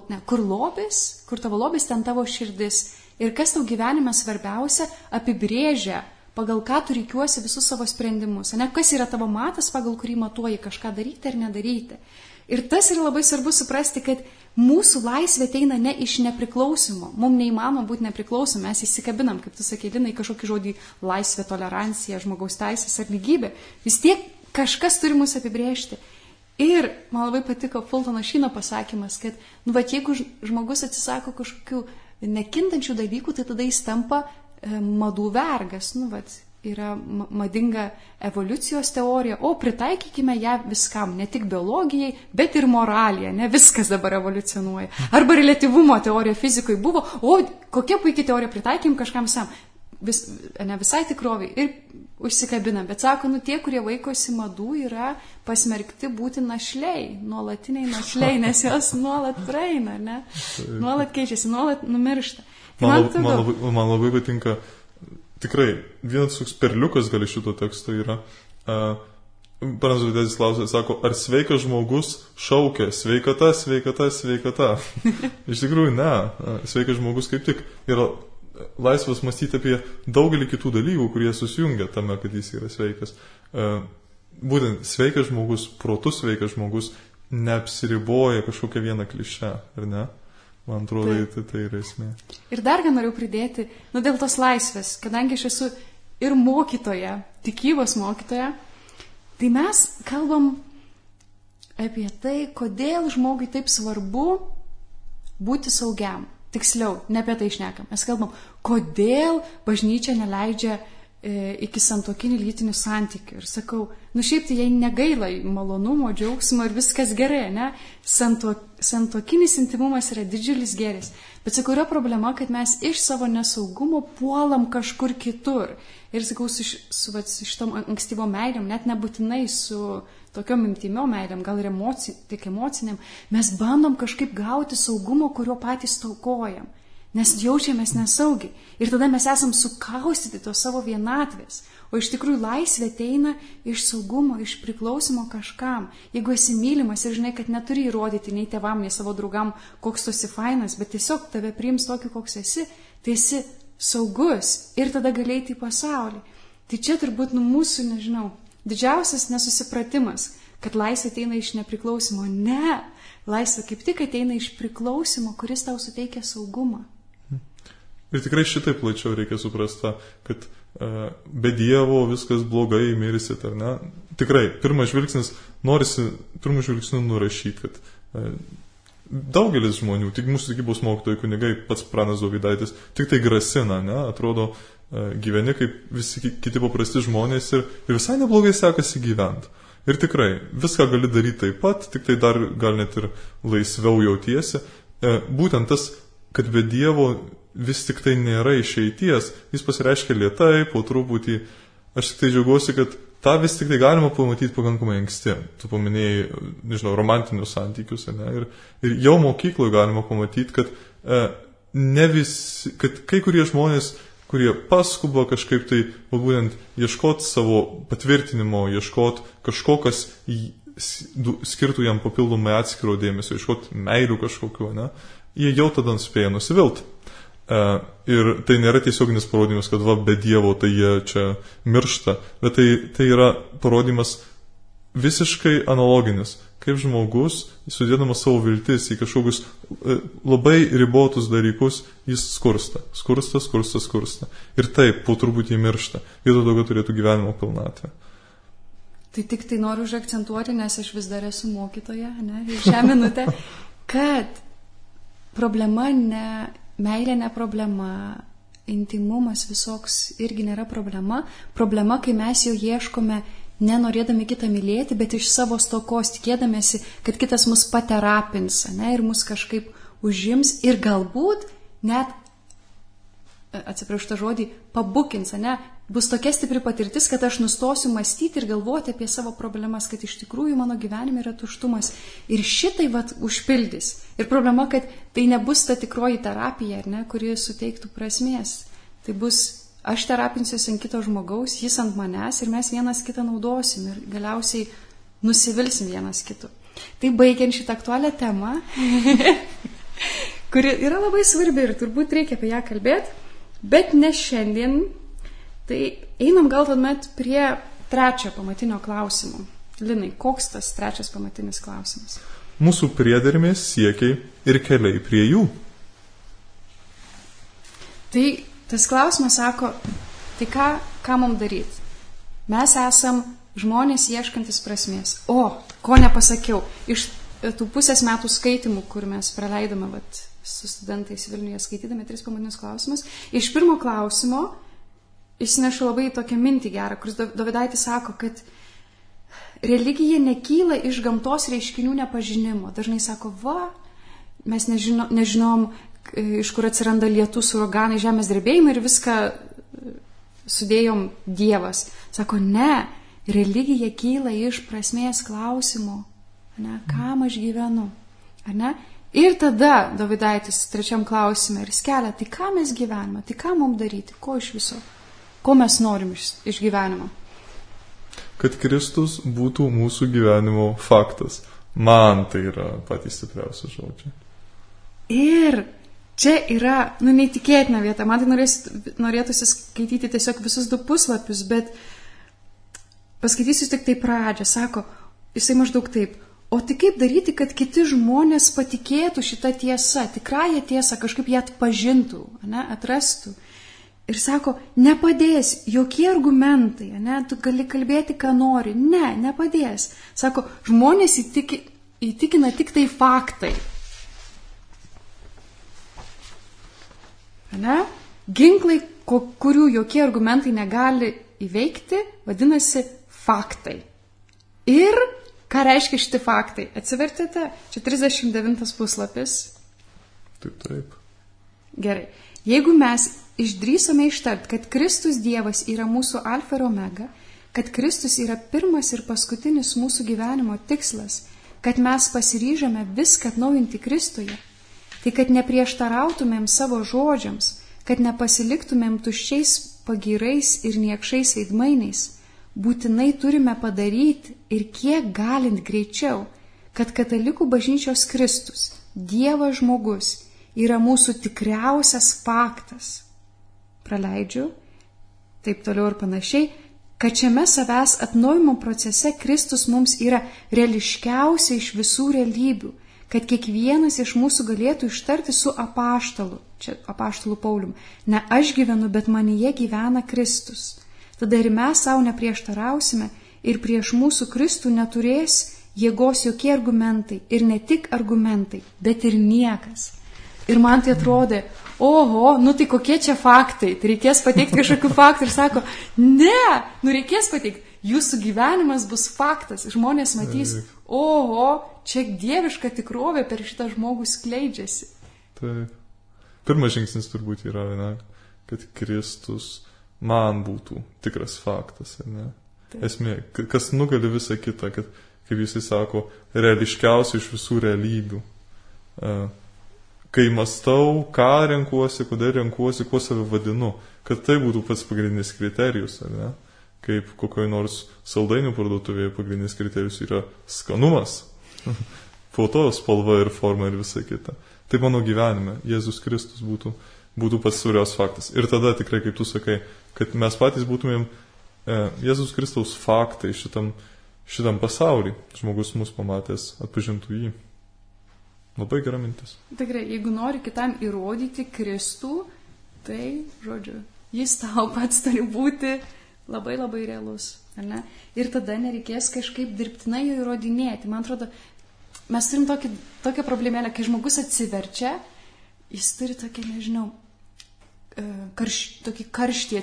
lobis, ten tavo širdis. Ir kas tau gyvenime svarbiausia, apibrėžia, pagal ką tu reikiuosi visus savo sprendimus. Ne, kas yra tavo matas, pagal kurį matuoji kažką daryti ar nedaryti. Ir tas yra labai svarbu suprasti, kad mūsų laisvė ateina ne iš nepriklausimo. Mums neįmanoma būti nepriklausomi, mes įsikabinam, kaip tu sakei, Linai, kažkokį žodį laisvė, tolerancija, žmogaus teisės ar lygybė. Vis tiek kažkas turi mus apibrėžti. Ir man labai patiko Fultono Šyno pasakymas, kad jeigu žmogus atsisako kažkokių nekintančių dalykų, tai tada jis tampa madų vergas. Yra madinga evoliucijos teorija, o pritaikykime ją viskam, ne tik biologijai, bet ir moralija, ne viskas dabar evoliucionuoja. Arba reliatyvumo teorija fizikoje buvo, o kokia puikia teorija, pritaikim kažkam sam. Ne visai tikroviai ir užsikabina, bet sako, tie, kurie vaikosi madų, yra pasmerkti būti našliai, nuolatiniai našliai, nes jos nuolat praeina, ne? Nuolat keičiasi, nuolat numiršta. Man labai patinka. Tikrai, vienas toks perliukas gali šito teksto yra. Pranas Dovydaitis klausė, sako, ar sveikas žmogus šaukia sveikata, sveikata, sveikata. Iš tikrųjų, ne. Sveikas žmogus kaip tik yra laisvas mąstyti apie daugelį kitų dalykų, kurie susijungia tame, kad jis yra sveikas. Būtent sveikas žmogus, protus sveikas žmogus neapsiriboja kažkokią vieną klišę, ar ne? Man atrodo, tai yra esmė. Ir dar ką noriu pridėti, dėl tos laisvės, kadangi aš esu ir mokytoja, tikybos mokytoja, tai mes kalbam apie tai, kodėl žmogui taip svarbu būti saugiam. tiksliau, ne apie tai šnekam. Mes kalbam, kodėl bažnyčia neleidžia iki santuokinių lytinių santykių. Ir sakau, šiaip tai jai negaila malonumo, džiaugsmo ir viskas gerai, ne? Santuokinis intimumas yra didžiulis gėris. Bet sakau, yra problema, kad mes iš savo nesaugumo puolam kažkur kitur. Ir sakau, su šitom ankstyvom meilėm, net nebūtinai su tokiom intimiom meilėm, gal ir tik emociniam, mes bandom kažkaip gauti saugumo, kurio patys taukojam. Nes jaučiamės nesaugiai. Ir tada mes esam sukaustyti to savo vienatvės. O iš tikrųjų laisvė ateina iš saugumo, iš priklausimo kažkam. Jeigu esi mylimas ir žinai, kad neturi įrodyti nei tėvam, nei savo draugam, koks tu esi fainas, bet tiesiog tave priims tokį, koks esi, tai esi saugus ir tada gali eiti į pasaulį. Tai čia turbūt mūsų, nežinau, didžiausias nesusipratimas, kad laisvė ateina iš nepriklausimo. Ne, laisvė kaip tik ateina iš priklausimo, kuris tau suteikia saugumą. Ir tikrai šitai plačiau reikia suprasti, kad be Dievo viskas blogai, mirsit, ar ne? Tikrai, pirmas žvilgsnis, norisi pirmų žvilgsnių nurašyti, kad daugelis žmonių, tik mūsų tikybos mokytojai kunigai, pats pranas Dovydaitis, tik tai grasina, ne? Atrodo, gyveni kaip visi kiti paprasti žmonės ir visai neblogai sekasi gyventi. Ir tikrai, viską gali daryti taip pat, tik tai dar gal net ir laisviau jautiesi. Būtent tas, kad be Dievo vis tik tai nėra išeities, jis pasireiškia lėtai, po truputį. Aš tik tai džiaugiuosi, kad tą vis tik tai galima pamatyti pakankamai anksti. Tu paminėjai, nežinau, romantinius santykius, ne? Ir jau mokykloje galima pamatyti, kad, kad kai kurie žmonės, kurie paskuba kažkaip tai, būtent ieškoti savo patvirtinimo, ieškoti kažko, kas skirtų jam papildomai atskiro dėmesio, ieškoti meilių kažkokiu, ne? Jie jau tada spėja nusivilti. Ir tai nėra tiesioginis parodymas, kad be Dievo tai jie čia miršta, bet tai yra parodymas visiškai analoginis, kaip žmogus, sudėdamas savo viltis į kažkokius labai ribotus dalykus, jis skursta. Ir taip, po truputį miršta. Vietoj to, kad turėtų gyvenimo pilnatvę. Tai tik tai noriu užakcentuoti, nes aš vis dar esu mokytoja, ne, šią minutę, kad problema meilė ne problema, intimumas visoks irgi nėra problema. Problema, kai mes jo ieškome nenorėdami kitą mylėti, bet iš savo stokos tikėdamėsi, kad kitas mus paterapins, ne, ir mus kažkaip užims ir galbūt net, atsiprašau tą žodį, pabukins, ne, bus tokia stipri patirtis, kad aš nustosiu mąstyti ir galvoti apie savo problemas, kad iš tikrųjų mano gyvenime yra tuštumas. Ir šitai užpildys. Ir problema, kad tai nebus ta tikroji terapija, ne, kuri suteiktų prasmės. Tai bus, aš terapinsiuosi ant kito žmogaus, jis ant manęs ir mes vienas kitą naudosim ir galiausiai nusivilsim vienas kitu. Tai baigiant šitą aktualią temą, kuri yra labai svarbi ir turbūt reikia apie ją kalbėti, bet ne šiandien. Tai einam gal tuomet prie trečio pamatinio klausimo. Linai, koks tas trečias pamatinis klausimas? Mūsų priedermės, siekiai ir keliai prie jų. Tai tas klausimas sako, tai ką mums daryti? Mes esam žmonės ieškantis prasmės. O, ko nepasakiau, iš tų pusės metų skaitimų, kur mes praleidome su studentais Vilniuje skaitydami 3 pamatinius klausimus, iš pirmo klausimo išsinešu labai tokią mintį gerą, kuris Dovydaitis sako, kad religija nekyla iš gamtos reiškinių nepažinimo. Dažnai sako, mes nežinom, iš kur atsiranda lietus, uraganai, žemės drebėjimai ir viską sudėjom Dievas. Sako, ne, religija kyla iš prasmės klausimo, ne, kam aš gyvenu, ne? Ir tada Dovydaitis 3 klausime ir skelia, tai ką mes gyvename, tai ką mums daryti, ko iš viso? Ko mes norim iš gyvenimo? Kad Kristus būtų mūsų gyvenimo faktas. Man tai yra patys stipriausi žodžiai. Ir čia yra, neįtikėtina vieta. Man tai norėtųsi skaityti tiesiog visus 2 puslapius, bet paskaitysiu tik tai pradžią. Sako, jisai maždaug taip, o tai kaip daryti, kad kiti žmonės patikėtų šitą tiesą, tikrąją tiesą, kažkaip ją atpažintų, ne, atrastų. Ir sako, nepadės jokie argumentai, ne, tu gali kalbėti, ką nori. Ne, nepadės. Sako, žmonės įtikina tik tai faktai. Ne? Ginklai, kurių jokie argumentai negali įveikti, vadinasi faktai. Ir ką reiškia šitie faktai? Atsivertėte, čia 39 puslapis. Taip. Gerai. Jeigu mes išdrįsome ištart, kad Kristus Dievas yra mūsų alfa ir omega, kad Kristus yra pirmas ir paskutinis mūsų gyvenimo tikslas, kad mes pasiryžame viską atnaujinti Kristuje, tai kad neprieštarautumėm savo žodžiams, kad nepasiliktumėm tuščiais pagyrais ir niekšais veidmainiais, būtinai turime padaryti ir kiek galint greičiau, kad katalikų bažnyčios Kristus, Dievas žmogus, yra mūsų tikriausias faktas. Praleidžiu, taip toliau ir panašiai, kad šiame savęs atnaujimo procese Kristus mums yra reališkiausia iš visų realybių, kad kiekvienas iš mūsų galėtų ištarti su apaštalu, čia apaštalu Paulium, ne aš gyvenu, bet manyje gyvena Kristus. Tada ir mes savo neprieštarausime ir prieš mūsų Kristų neturės jėgos jokie argumentai ir ne tik argumentai, bet ir niekas. Ir man tai atrodė, oho, tai kokie čia faktai, tai reikės pateikti kažkokių faktų ir sako, ne, reikės pateikti, jūsų gyvenimas bus faktas, žmonės matys, oho, čia dieviška tikrovė per šitą žmogų skleidžiasi. Taip. Pirmas žingsnis turbūt yra, kad Kristus man būtų tikras faktas, ne? Taip. Esmė, kas nugali visą kitą, kad, kaip jisai sako, reališkiausia iš visų realybių. Kai mąstau, ką renkuosi, kodėl renkuosi, kuo save vadinu, kad tai būtų pats pagrindinis kriterijus, ne? Kaip kokioj nors saldainių parduotuvėje pagrindinis kriterijus yra skanumas, foto spalva ir forma ir visa kita. Tai mano gyvenime Jėzus Kristus būtų pats svarbiausias faktas. Ir tada tikrai, kaip tu sakai, kad mes patys būtumėm Jėzus Kristaus faktai šitam pasaulį. Žmogus mus pamatęs atpažintų jį. Labai gera mintis. Tikrai, jeigu nori kitam įrodyti Kristų, tai, žodžiu, jis tau pats turi būti labai labai realus. Ar ne? Ir tada nereikės kažkaip dirbtinai jo įrodinėti. Man atrodo, mes turim tokią problemėlę, kai žmogus atsiverčia, jis turi tokį, nežinau, tokį karštį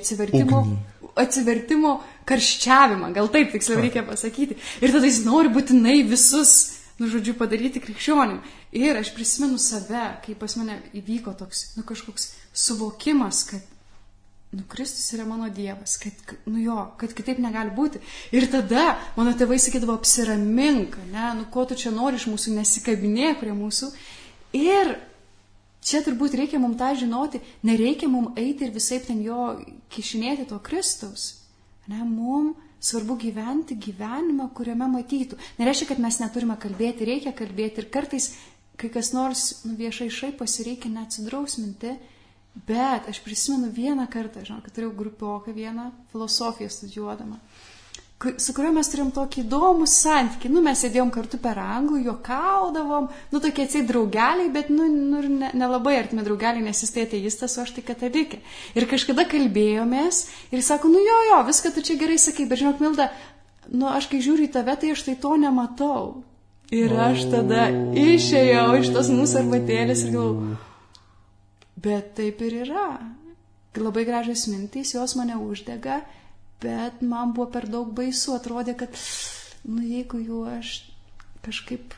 atsivertimo karščiavimą, gal taip tiksliau reikia pasakyti. Ir tada jis nori būtinai visus, padaryti krikščionim. Ir aš prisimenu save, kai pas mane įvyko toks, kažkoks suvokimas, kad, Kristus yra mano Dievas, kad kitaip negali būti. Ir tada mano tėvai sakydavo, apsiramink, ko tu čia nori iš mūsų, nesikabinėk prie mūsų. Ir čia turbūt reikia mums tą žinoti, nereikia mums eiti ir visaip ten jo kišinėti to Kristaus. Mums svarbu gyventi gyvenimą, kuriame matytų. Nereiškia, kad mes neturime kalbėti, reikia kalbėti. Ir kartais, kai kas nors viešai šaiposi, reikia neatsidrausminti. Bet aš prisimenu vieną kartą, kad turėjau grupioką vieną filosofiją studijuodama, su kuriuo mes turėjom tokį įdomų santykį. Mes sėdėjom kartu per anglų, juokaudavom, tokie atseit draugeliai, bet nelabai artimi draugeliai, nes jis tai ateistas, o aš tai katalikė. Ir kažkada kalbėjomės ir jis sako, jo, viską tu čia gerai sakai, bet žinok, Milda, aš kai žiūriu į tave, tai aš tai to nematau. Ir aš tada išėjau iš tos mūsų arbatėlės ir galvoju, bet taip ir yra. Labai gražios mintys, jos mane uždega, bet man buvo per daug baisu, atrodė, kad, jeigu jau aš kažkaip,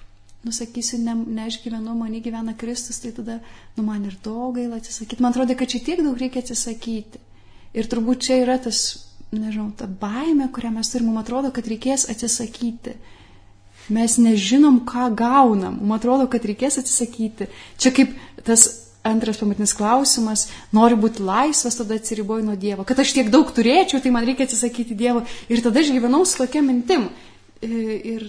sakysiu, ne aš gyvenu, mane gyvena Kristus, tai tada, man ir daug gaila atsisakyti. Man atrodė, kad čia tiek daug reikia atsisakyti. Ir turbūt čia yra tas, ta baimė, kurią mes turim, man atrodo, kad reikės atsisakyti. Mes nežinom, ką gaunam, man atrodo, kad reikės atsisakyti. Čia kaip tas antras pamatinis klausimas, noriu būti laisvas, tada atsiriboju nuo Dievo. Kad aš tiek daug turėčiau, tai man reikia atsisakyti Dievo. Ir tada aš gyvenau su tokia mintim. Ir,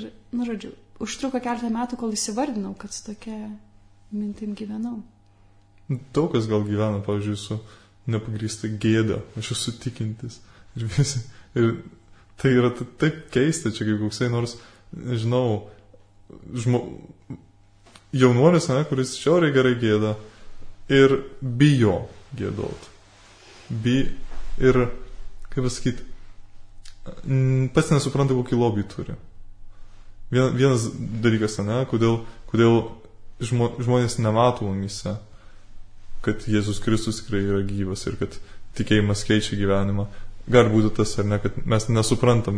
užtruko keletą metų, kol įsivardinau, kad su tokia mintim gyvenau. Daug kas gal gyvena, pavyzdžiui, su nepagrįsta gėda. Aš esu tikintis. Ir tai yra taip keista, čia kaip koksai nors, nežinau, jaunuolis, kuris šiauriai gerai gėda. Ir bijo gėdot. Ir, kaip pasakyti, pats nesupranta, kokį lobį turi. Vienas dalykas, kodėl žmonės nemato mumyse. kad Jėzus Kristus tikrai yra gyvas ir kad tikėjimas keičia gyvenimą. Gali būti tas ar ne, kad mes nesuprantam,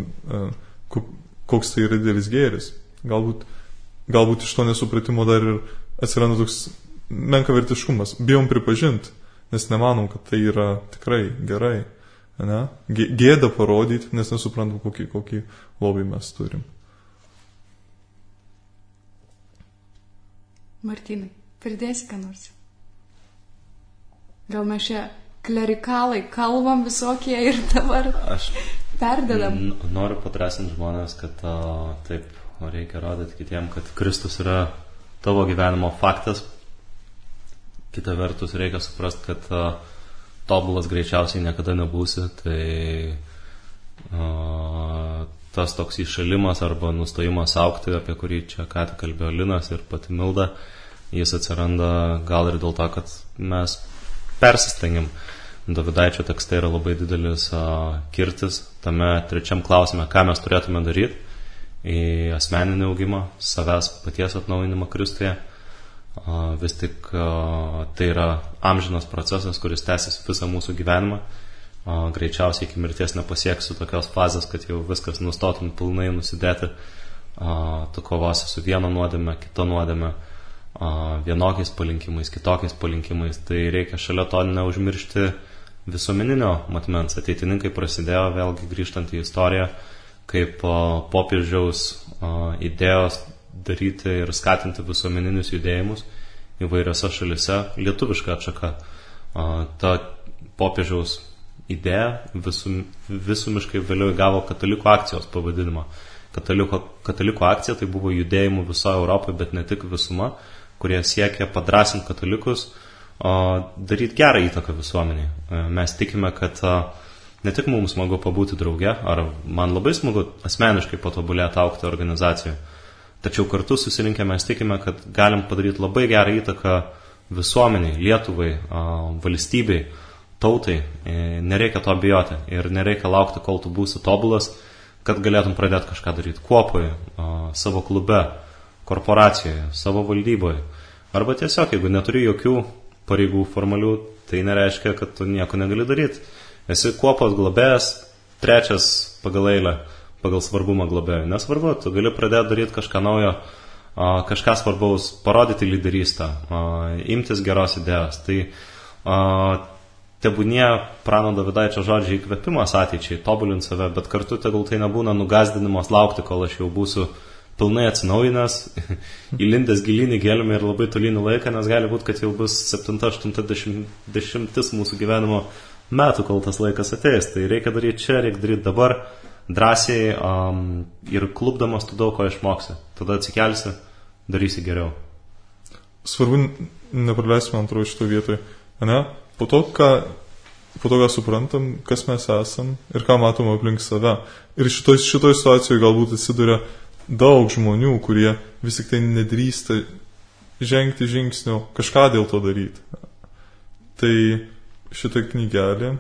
koks tai yra didelis gėris. Galbūt iš to nesupratimo dar ir atsiranda toks menkavertiškumas. Bijom pripažinti, nes nemanom, kad tai yra tikrai gerai. Ne? Gėda parodyti, nes nesuprantam, kokį lobį mes turim. Martynai, pridėsi ką nors? Gal mes čia klerikalai kalbam visokie ir dabar perdedam? Noriu padrasinti žmonės, kad taip reikia rodyti kitiem, kad Kristus yra tavo gyvenimo faktas. Kita vertus reikia suprasti, kad tobulas greičiausiai niekada nebūsi, tai tas toks įšalimas arba nustojimas augti, apie kurį čia ką tik kalbėjo Linas ir pati Milda, jis atsiranda gal ir dėl to, kad mes persistengiam. Dovidaičio tekste yra labai didelis kirtis tame trečiam klausime, ką mes turėtume daryti į asmeninį augimą, savęs paties atnaujinimą Kristuje. Vis tik tai yra amžinas procesas, kuris tęsis visą mūsų gyvenimą. Greičiausiai iki mirties nepasieksiu tokios fazės, kad jau viskas nustotum pilnai nusidėti. Tu kovosi su viena nuodėme, kita nuodėme, vienokiais palinkimais, kitokiais palinkimais. Tai reikia šalia to neužmiršti visuomeninio matmens. Ateitininkai prasidėjo, vėlgi grįžtant į istoriją, kaip popiežiaus idėjos daryti ir skatinti visuomeninius judėjimus įvairiose šalise, lietuviška atšaka. Ta popiežiaus idėja visumiškai vėliau įgavo katalikų akcijos pavadinimą. Katalikų akcija tai buvo judėjimų visoje Europoje, bet ne tik visuma, kurie siekia padrasinti katalikus, daryti gerą įtaką visuomeniai. Mes tikime, kad ne tik mums smagu pabūti drauge, ar man labai smagu asmeniškai patobulėti augti organizacijoje, tačiau kartu susirinkę mes tikime, kad galim padaryti labai gerą įtaką visuomeniai, Lietuvai, valstybei, tautai. Nereikia to bijoti ir nereikia laukti, kol tu būsi tobulas, kad galėtum pradėti kažką daryti kuopoje, savo klube, korporacijoje, savo valdyboje. Arba tiesiog, jeigu neturi jokių pareigų formalių, tai nereiškia, kad tu nieko negali daryti. Esi kuopos globėjas, trečias pagal eilę, pagal svarbumą globėjų. Nesvarbu, tu gali pradėti daryti kažką naujo, kažką svarbaus, parodyti lyderystę, imtis geros idėjos. Tai tebūnie prano Dovidaičio žodžiai įkvėpimas ateičiai, tobulinti save, bet kartu tegul tai nebūna nugazdinimas laukti, kol aš jau būsiu pilnai atsinaujinęs, įlindęs gilinį gelmę ir labai tolinį laiką, nes gali būti, kad jau bus 7-80 mūsų gyvenimo metų, kol tas laikas ateis. Tai reikia daryti čia, reikia daryti dabar, drąsiai ir klubdamas tu daug ko išmoksi. Tada atsikelsi, darysi geriau. Svarbu nepraleisime antrojo šito vietoje. Ne? Po to, ką suprantam, kas mes esam ir ką matom aplink save. Ir šitoj situacijoje galbūt atsiduria daug žmonių, kurie vis tik tai nedrįsta žengti žingsnio, kažką dėl to daryti. Tai šitą knygelę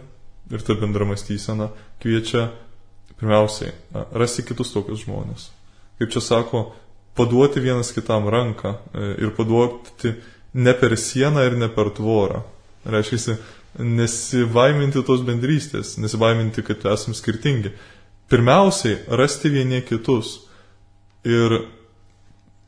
ir ta bendra mąstysena kviečia pirmiausiai rasti kitus tokius žmonės. Kaip čia sako, paduoti vienas kitam ranką ir paduoti ne per sieną ir ne per tvorą. Reiškia, nesibaiminti tos bendrystės, nesibaiminti, kad esame skirtingi. Pirmiausiai, rasti vieni kitus. Ir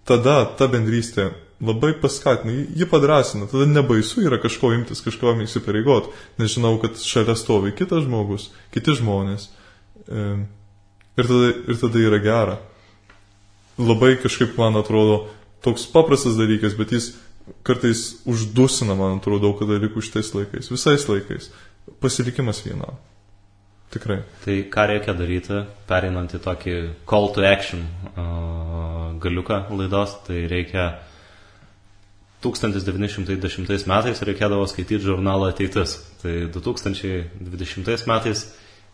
tada ta bendrystė labai paskatina, ji padrasina, tada nebaisu yra kažko imtis, kažko įsipareigoti, nes žinau, kad šalia stovi kitas žmogus, kiti žmonės. Ir tada yra gera. Labai kažkaip, man atrodo, toks paprastas dalykas, bet jis kartais uždusina, man atrodo, daug dalykų šitais laikais, visais laikais. Pasilikimas vienam. Tikrai. Tai ką reikia daryti, pereinant į tokį call to action galiuką laidos, tai reikia 1910 metais reikėdavo skaityti žurnalą Ateitis. Tai 2020 metais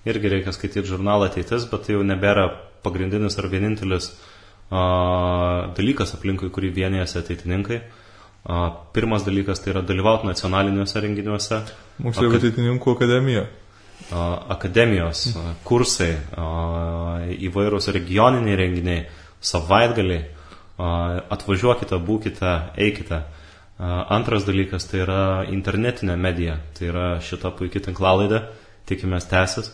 irgi reikia skaityti žurnalą Ateitis, bet tai jau nebėra pagrindinis ar vienintelis dalykas aplinkui, kurį vienijasi ateitininkai. Pirmas dalykas tai yra dalyvauti nacionaliniuose renginiuose. Moksleivių ateitininkų akademija. Akademijos, kursai, įvairūs regioniniai renginiai, savaitgaliai. Atvažiuokite, būkite, eikite. Antras dalykas tai yra internetinė medija, tai yra šita puikia tinklalaidė, tikimės tęsis,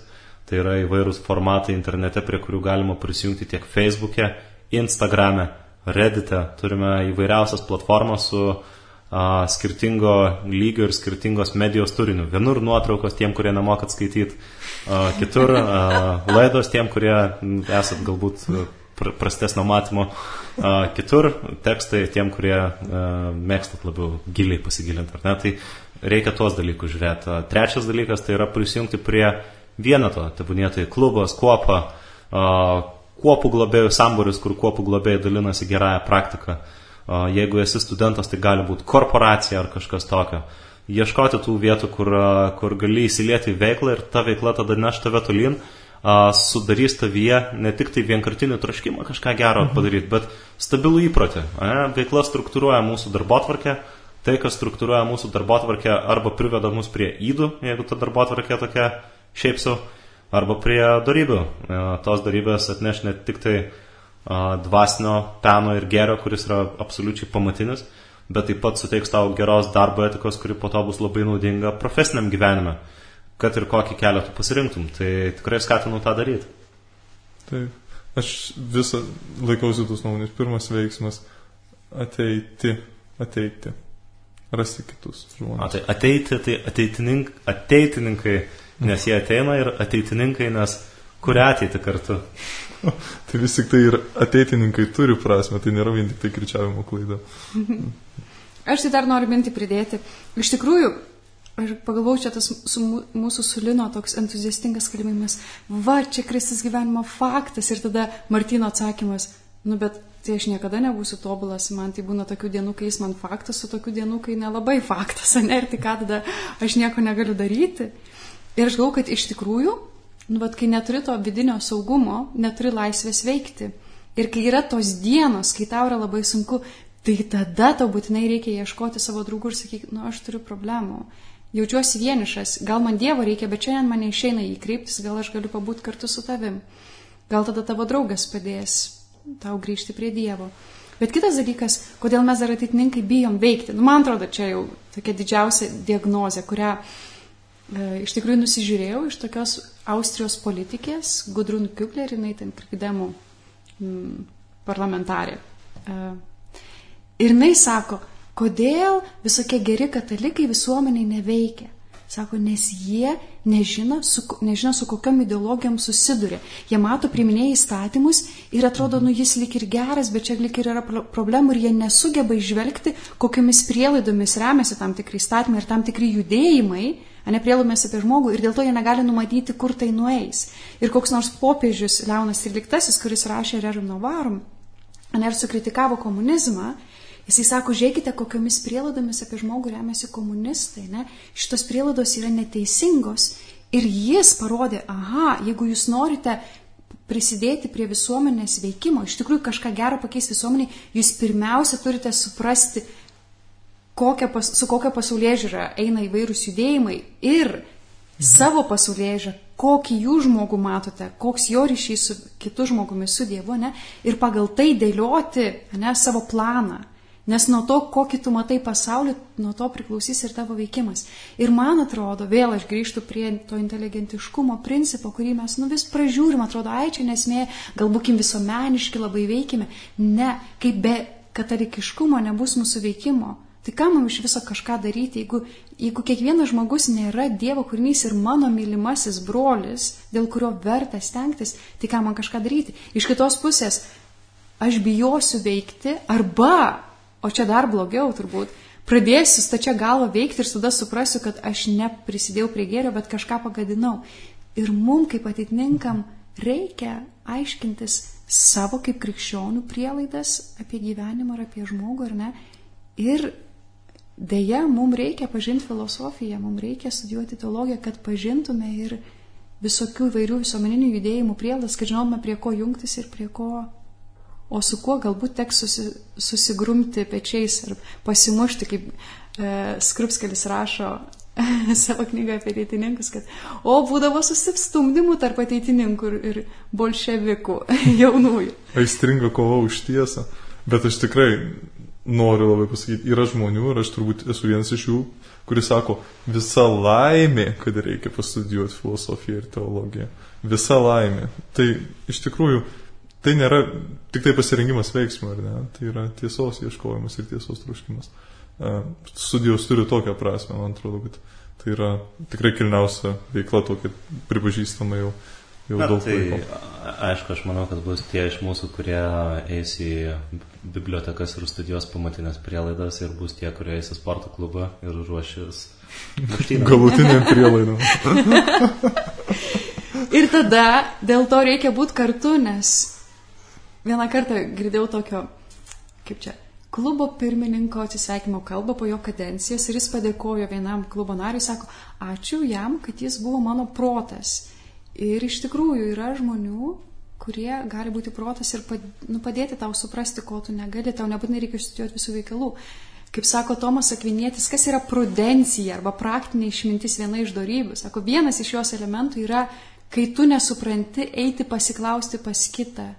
tai yra įvairūs formatai internete, prie kurių galima prisijungti tiek Facebook'e, Instagram'e, Reddit'e, turime įvairiausias platformas su skirtingo lygio ir skirtingos medijos turiniu. Vienur nuotraukos tiem, kurie nemokat skaityti, kitur laidos tiem, kurie esat galbūt prastesnio matymo, kitur tekstai tiem, kurie mėgstat labiau giliai pasigilinti, ar ne? Tai reikia tuos dalykus žiūrėti. Trečias dalykas tai yra prisijungti prie vieneto, tebūnėtai klubas, kuopa, kuopų globėjų sambūris, kur kuopų globėjai dalinasi gerąją praktiką. Jeigu esi studentas, tai gali būti korporacija ar kažkas tokio. Ieškoti tų vietų, kur gali įsilieti į veiklą ir ta veikla tada neš tave tolyn, sudarys tavyje ne tik tai vienkartinį troškimą kažką gero padaryti, bet stabilų įprotį. Veikla struktūruoja mūsų darbotvarkę, tai, kas struktūruoja mūsų darbotvarkę, arba priveda mus prie įdų, jeigu ta darbotvarkė tokia šiaip sau, arba prie darybių. Tos darybės atneš ne tik tai dvasinio peno ir gėrio, kuris yra absoliučiai pamatinis, bet taip pat suteiks tau geros darbo etikos, kuri po to bus labai naudinga profesiniam gyvenime, kad ir kokį kelią tu pasirinktum. Tai tikrai skatinu tą daryti. Taip, aš visą laikausi tos nuomonės. Pirmas veiksmas - ateiti, rasti kitus žmonės. Ateiti, tai ateitininkai, nes jie ateina, ir ateitininkai, nes kuria ateiti kartu. Tai vis tik tai ir ateitininkai turi prasme, tai nėra vien tik tai kirčiavimo klaida. Aš tai dar noriu mintį pridėti. Iš tikrųjų, aš pagalvojau, čia tas mūsų Sulino toks entuziastingas kalbėjimas, va, čia Kristus gyvenimo faktas, ir tada Martyno atsakymas, bet tai aš niekada nebūsiu tobulas, man tai būna tokių dienų, kai jis man faktas, o tokių dienų, kai nelabai faktas, ne, ir tai ką tada aš nieko negaliu daryti. Ir aš galvoju, kad iš tikrųjų, kai neturi to vidinio saugumo, neturi laisvės veikti. Ir kai yra tos dienos, kai tau yra labai sunku, tai tada tau būtinai reikia ieškoti savo draugų ir sakyti, aš turiu problemų, jaučiuosi vienišas, gal man Dievo reikia, bet šiandien man neišeina jį kreiptis, gal aš galiu pabūti kartu su tavim. Gal tada tavo draugas padės tau grįžti prie Dievo. Bet kitas dalykas, kodėl mes dar ateitininkai bijom veikti. Man atrodo, čia jau tokia didžiausia diagnozė, kurią iš tikrųjų nusižiūrėjau iš tokios Austrijos politikės, Gudrun Kübler, jinai ten krikdemų parlamentarė. Ir jinai sako, kodėl visokie geri katalikai visuomeniai neveikia. Sako, nes jie nežino, su kokiom ideologijom susiduria. Jie mato, priiminėja įstatymus ir atrodo, jis lik ir geras, bet čia lik ir yra problemų ir jie nesugeba išvelgti, kokiamis prielaidomis remiasi tam tikri įstatymai ir tam tikri judėjimai, prielaidomis apie žmogų, ir dėl to jie negali numatyti, kur tai nueis. Ir koks nors popiežius Leonas XIII, kuris rašė Rerum Novarum, ir sukritikavo komunizmą, jisai sako, žiūrėkite, kokiomis prielaidomis apie žmogų remiasi komunistai. Šitos prielaidos yra neteisingos. Ir jis parodė, jeigu jūs norite prisidėti prie visuomenės veikimo, iš tikrųjų kažką gero pakeisti visuomeniai, jūs pirmiausia turite suprasti, su kokia pasaulėžiūra eina įvairūs judėjimai ir savo pasaulėžiūrą, kokį jų žmogų matote, koks jo ryšys su kitu žmogumi, su Dievu, ir pagal tai dėlioti savo planą. Nes nuo to, kokį tu matai pasaulį, nuo to priklausys ir tavo veikimas. Ir man atrodo, vėl aš grįžtu prie to inteligentiškumo principo, kurį mes vis pražiūrim, atrodo, čia nesmė, gal būkim visuomeniški, labai veikime. Ne, kaip be katalikiškumo nebus mūsų veikimo. Tai ką man iš viso kažką daryti, jeigu kiekvienas žmogus nėra Dievo kūrinys ir mano mylimasis brolis, dėl kurio verta stengtis, tai ką man kažką daryti. Iš kitos pusės, aš bijosiu veikti arba, o čia dar blogiau turbūt, pradėsiu stačia galva veikti ir tada suprasiu, kad aš neprisidėjau prie gėrio, bet kažką pagadinau. Ir mum kaip ateitininkam reikia aiškintis savo kaip krikščionių prielaidas apie gyvenimą ar apie žmogų, ar ne. Ir deja, mums reikia pažinti filosofiją, mums reikia studijuoti teologiją, kad pažintume ir visokių įvairių visuomeninių judėjimų prielaidas, kad žinotume, prie ko jungtis ir prie ko, o su kuo galbūt teks susigrumti pečiais ir pasimušti, kaip Skrupskelis rašo savo knygą apie ateitininkus, kad būdavo susistumdymų tarp ateitininkų ir bolševikų jaunųjų. Aistringa kova už tiesą, bet aš tikrai noriu labai pasakyti, yra žmonių, ir aš turbūt esu vienas iš jų, kuris sako, visa laimė, kad reikia pastudijuoti filosofiją ir teologiją. Visa laimė. Tai iš tikrųjų, tai nėra tik tai pasirengimas veiksmui, ar ne? Tai yra tiesos ieškojimas ir tiesos troškimas. Studijos turi tokią prasme, man atrodo, kad tai yra tikrai kilniausia veikla, tokia pripažįstama jau daug laiko. Aišku, aš manau, kad bus tie iš mūsų, kurie eis į bibliotekas ir studijuos pamatinės prielaidas, ir bus tie, kurie eis į sporto klubą ir ruošis galutiniam prielaidom. Ir tada dėl to reikia būti kartu, nes vieną kartą girdėjau tokio, kaip čia, klubo pirmininko atsisveikimo kalbą po jo kadencijos, ir jis padėkojo vienam klubo nariui, sako, ačiū jam, kad jis buvo mano protas. Ir iš tikrųjų yra žmonių, kurie gali būti protas ir padėti tau suprasti, ko tu negali, tau nebūtinai reikia studijuoti visų veikalų. Kaip sako Tomas Akvinietis, kas yra prudencija arba praktinė išmintis, viena iš dorybių. Sako, vienas iš jos elementų yra, kai tu nesupranti, eiti pasiklausti pas kitą.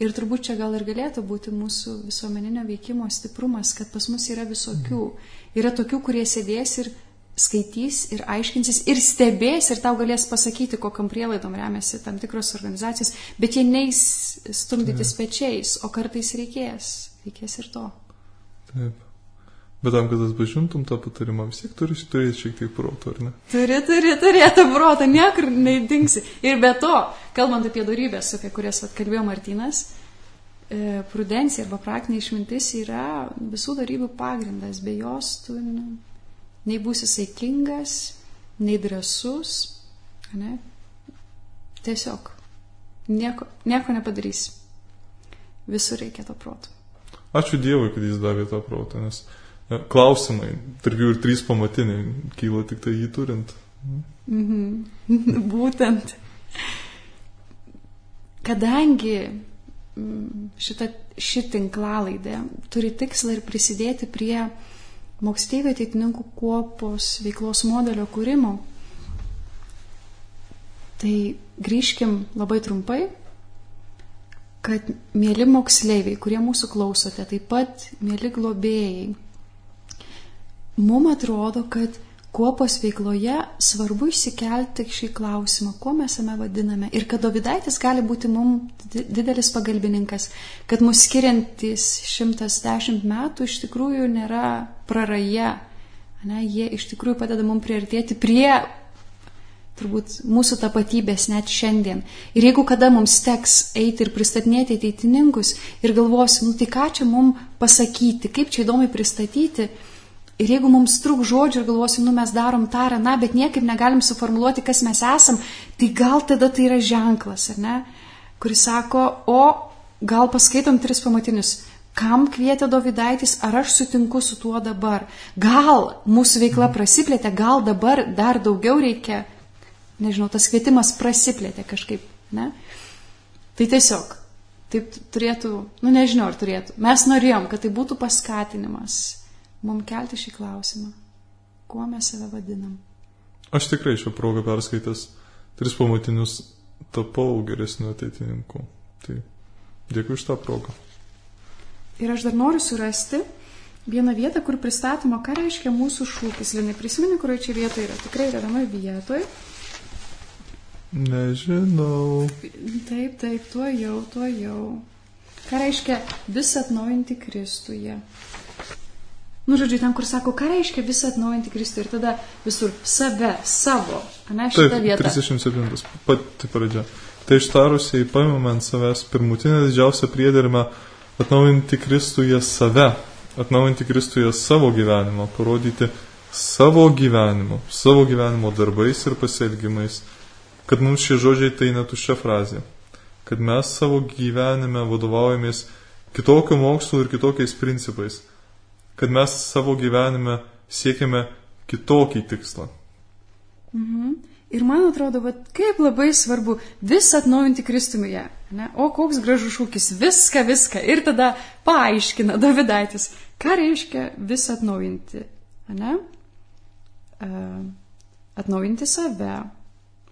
Ir turbūt čia gal ir galėtų būti mūsų visuomeninio veikimo stiprumas, kad pas mus yra visokių. Yra tokių, kurie sėdės ir skaitys ir aiškinsis ir stebės ir tau galės pasakyti, kokiam prielaidom remiasi tam tikros organizacijos, bet jie neis stumdytis pečiais, o kartais reikės ir to. Taip. Bet tam, kad atpažintum tą patarimą, vis tiek turi turėti šiek tiek proto, ar ne? Turi turėti protą, niekur neįdingsi. Ir be to, kalbant apie dorybės, apie kurias kalbėjo Martynas, prudencija arba praktinė išmintis yra visų dorybių pagrindas. Be jos tu nei būsi saikingas, nei drąsus, ne? Tiesiog nieko nepadarys. Visur reikia to proto. Ačiū Dievui, kad jis davė tą protą, nes klausimai, tarp jų ir 3 pamatiniai, kyla tik tai jį turint. Būtent. Kadangi ši tinklalaidė turi tikslą ir prisidėti prie moksleivių ateitininkų kuopos veiklos modelio kūrimo, tai grįžkim labai trumpai, kad mieli moksleiviai, kurie mūsų klausote, taip pat mieli globėjai, mums atrodo, kad kuopos veikloje svarbu išsikelti šį klausimą, kuo mes jame vadiname, ir kad Dovydaitis gali būti mums didelis pagalbininkas, kad mus skiriantis 110 metų iš tikrųjų nėra praraja, ne, jie iš tikrųjų padeda mums priartėti prie turbūt mūsų tapatybės net šiandien. Ir jeigu kada mums teks eiti ir pristatinėti ateitininkus ir galvosim, tai ką čia mums pasakyti, kaip čia įdomiai pristatyti, ir jeigu mums trūk žodžių ir galvosim, mes darom tą ar aną, bet niekaip negalim suformuluoti, kas mes esam, tai gal tada tai yra ženklas, ar ne, kuris sako, o gal paskaitom 3 pamatinius, kam kvietė Dovydaitis, ar aš sutinku su tuo dabar, gal mūsų veikla prasiplėtė, gal dabar dar daugiau reikia, nežinau, tas kvietimas prasiplėtė kažkaip, ne? Tai tiesiog, taip turėtų, nežinau, ar turėtų, mes norėjom, kad tai būtų paskatinimas mums kelti šį klausimą. Kuo mes save vadinam? Aš tikrai šią progą perskaitęs 3 pamatinius tapau geresniu ateitininku. Tai dėkui už tą progą. Ir aš dar noriu surasti vieną vietą, kur pristatoma, ką reiškia mūsų šūkis. Linai, prisimeni, kurioje čia vietoje yra? Tikrai yra vienoje vietoje. Nežinau. Taip, tuo jau. Ką reiškia visą atnaujinti Kristuje? Žodžiu, ten, kur sako, ką reiškia visą atnaujinti Kristų, ir tada visur save, savo, ne, šitą vietą. 37, pati pradžia. Tai ištarusiai paimame ant savęs pirmutinę didžiausią priedermę atnaujinti Kristuje save, atnaujinti Kristuje savo gyvenimą, parodyti savo gyvenimo darbais ir pasielgimais, kad mums šie žodžiai tai netuščia frazė, kad mes savo gyvenime vadovaujamės kitokio mokslo ir kitokiais principais, kad mes savo gyvenime siekiame kitokį tikslą. Ir man atrodo, kaip labai svarbu visą atnaujinti Kristuje. Ne? O koks gražus šūkis, viską. Ir tada paaiškina Dovydaitis, ką reiškia visą atnaujinti. Ne? Atnaujinti save,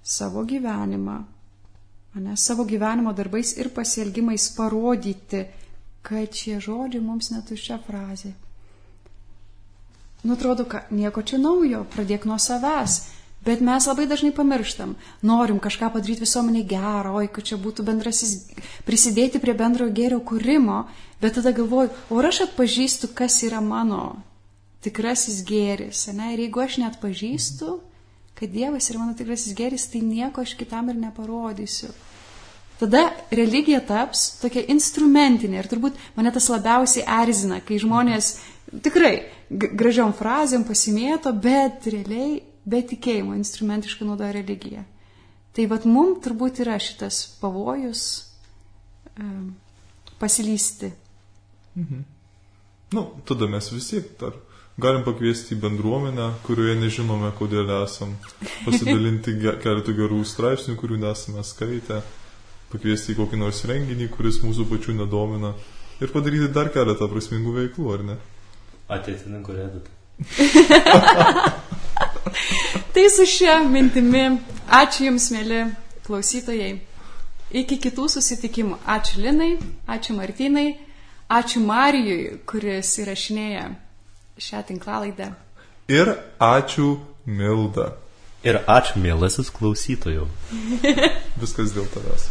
savo gyvenimą, ne? Savo gyvenimo darbais ir pasielgimais parodyti kad šie žodžiai mums netuščia frazė. Nu, atrodo, kad nieko čia naujo, pradėk nuo savęs. Bet mes labai dažnai pamirštam. Norim kažką padaryti visuomenė gero, kad čia būtų prisidėti prie bendrojo gėrio kūrimo, bet tada galvoju, o aš atpažįstu, kas yra mano tikrasis gėris. Ne? Ir jeigu aš net pažįstu, kad Dievas yra mano tikrasis gėris, tai nieko aš kitam ir neparodysiu. Tada religija taps tokia instrumentinė ir turbūt mane tas labiausiai erzina, kai žmonės tikrai gražiom frazėm pasimėto, bet realiai be tikėjimo instrumentiškai naudoja religiją. Tai vat mum turbūt yra šitas pavojus pasilysti. Mhm. Nu, tada mes visi dar galim pakviesti į bendruomenę, kurioje nežinome, kodėl esam, pasidalinti keletą gerų straipsnių, kurių nesame skaitę, pakviesti į kokį nors renginį, kuris mūsų pačių nedomina ir padaryti dar keletą prasmingų veiklų, ar ne? Ateitininkų reditą. Tai su šia mintimi, ačiū Jums, mėly klausytojai. Iki kitų susitikimų. Ačiū Linai, ačiū Martynai, ačiū Marijui, kuris įrašinėja šią tinklalaidę. Ir ačiū Milda. Ir ačiū, mielasis klausytojų. Viskas dėl tavęs.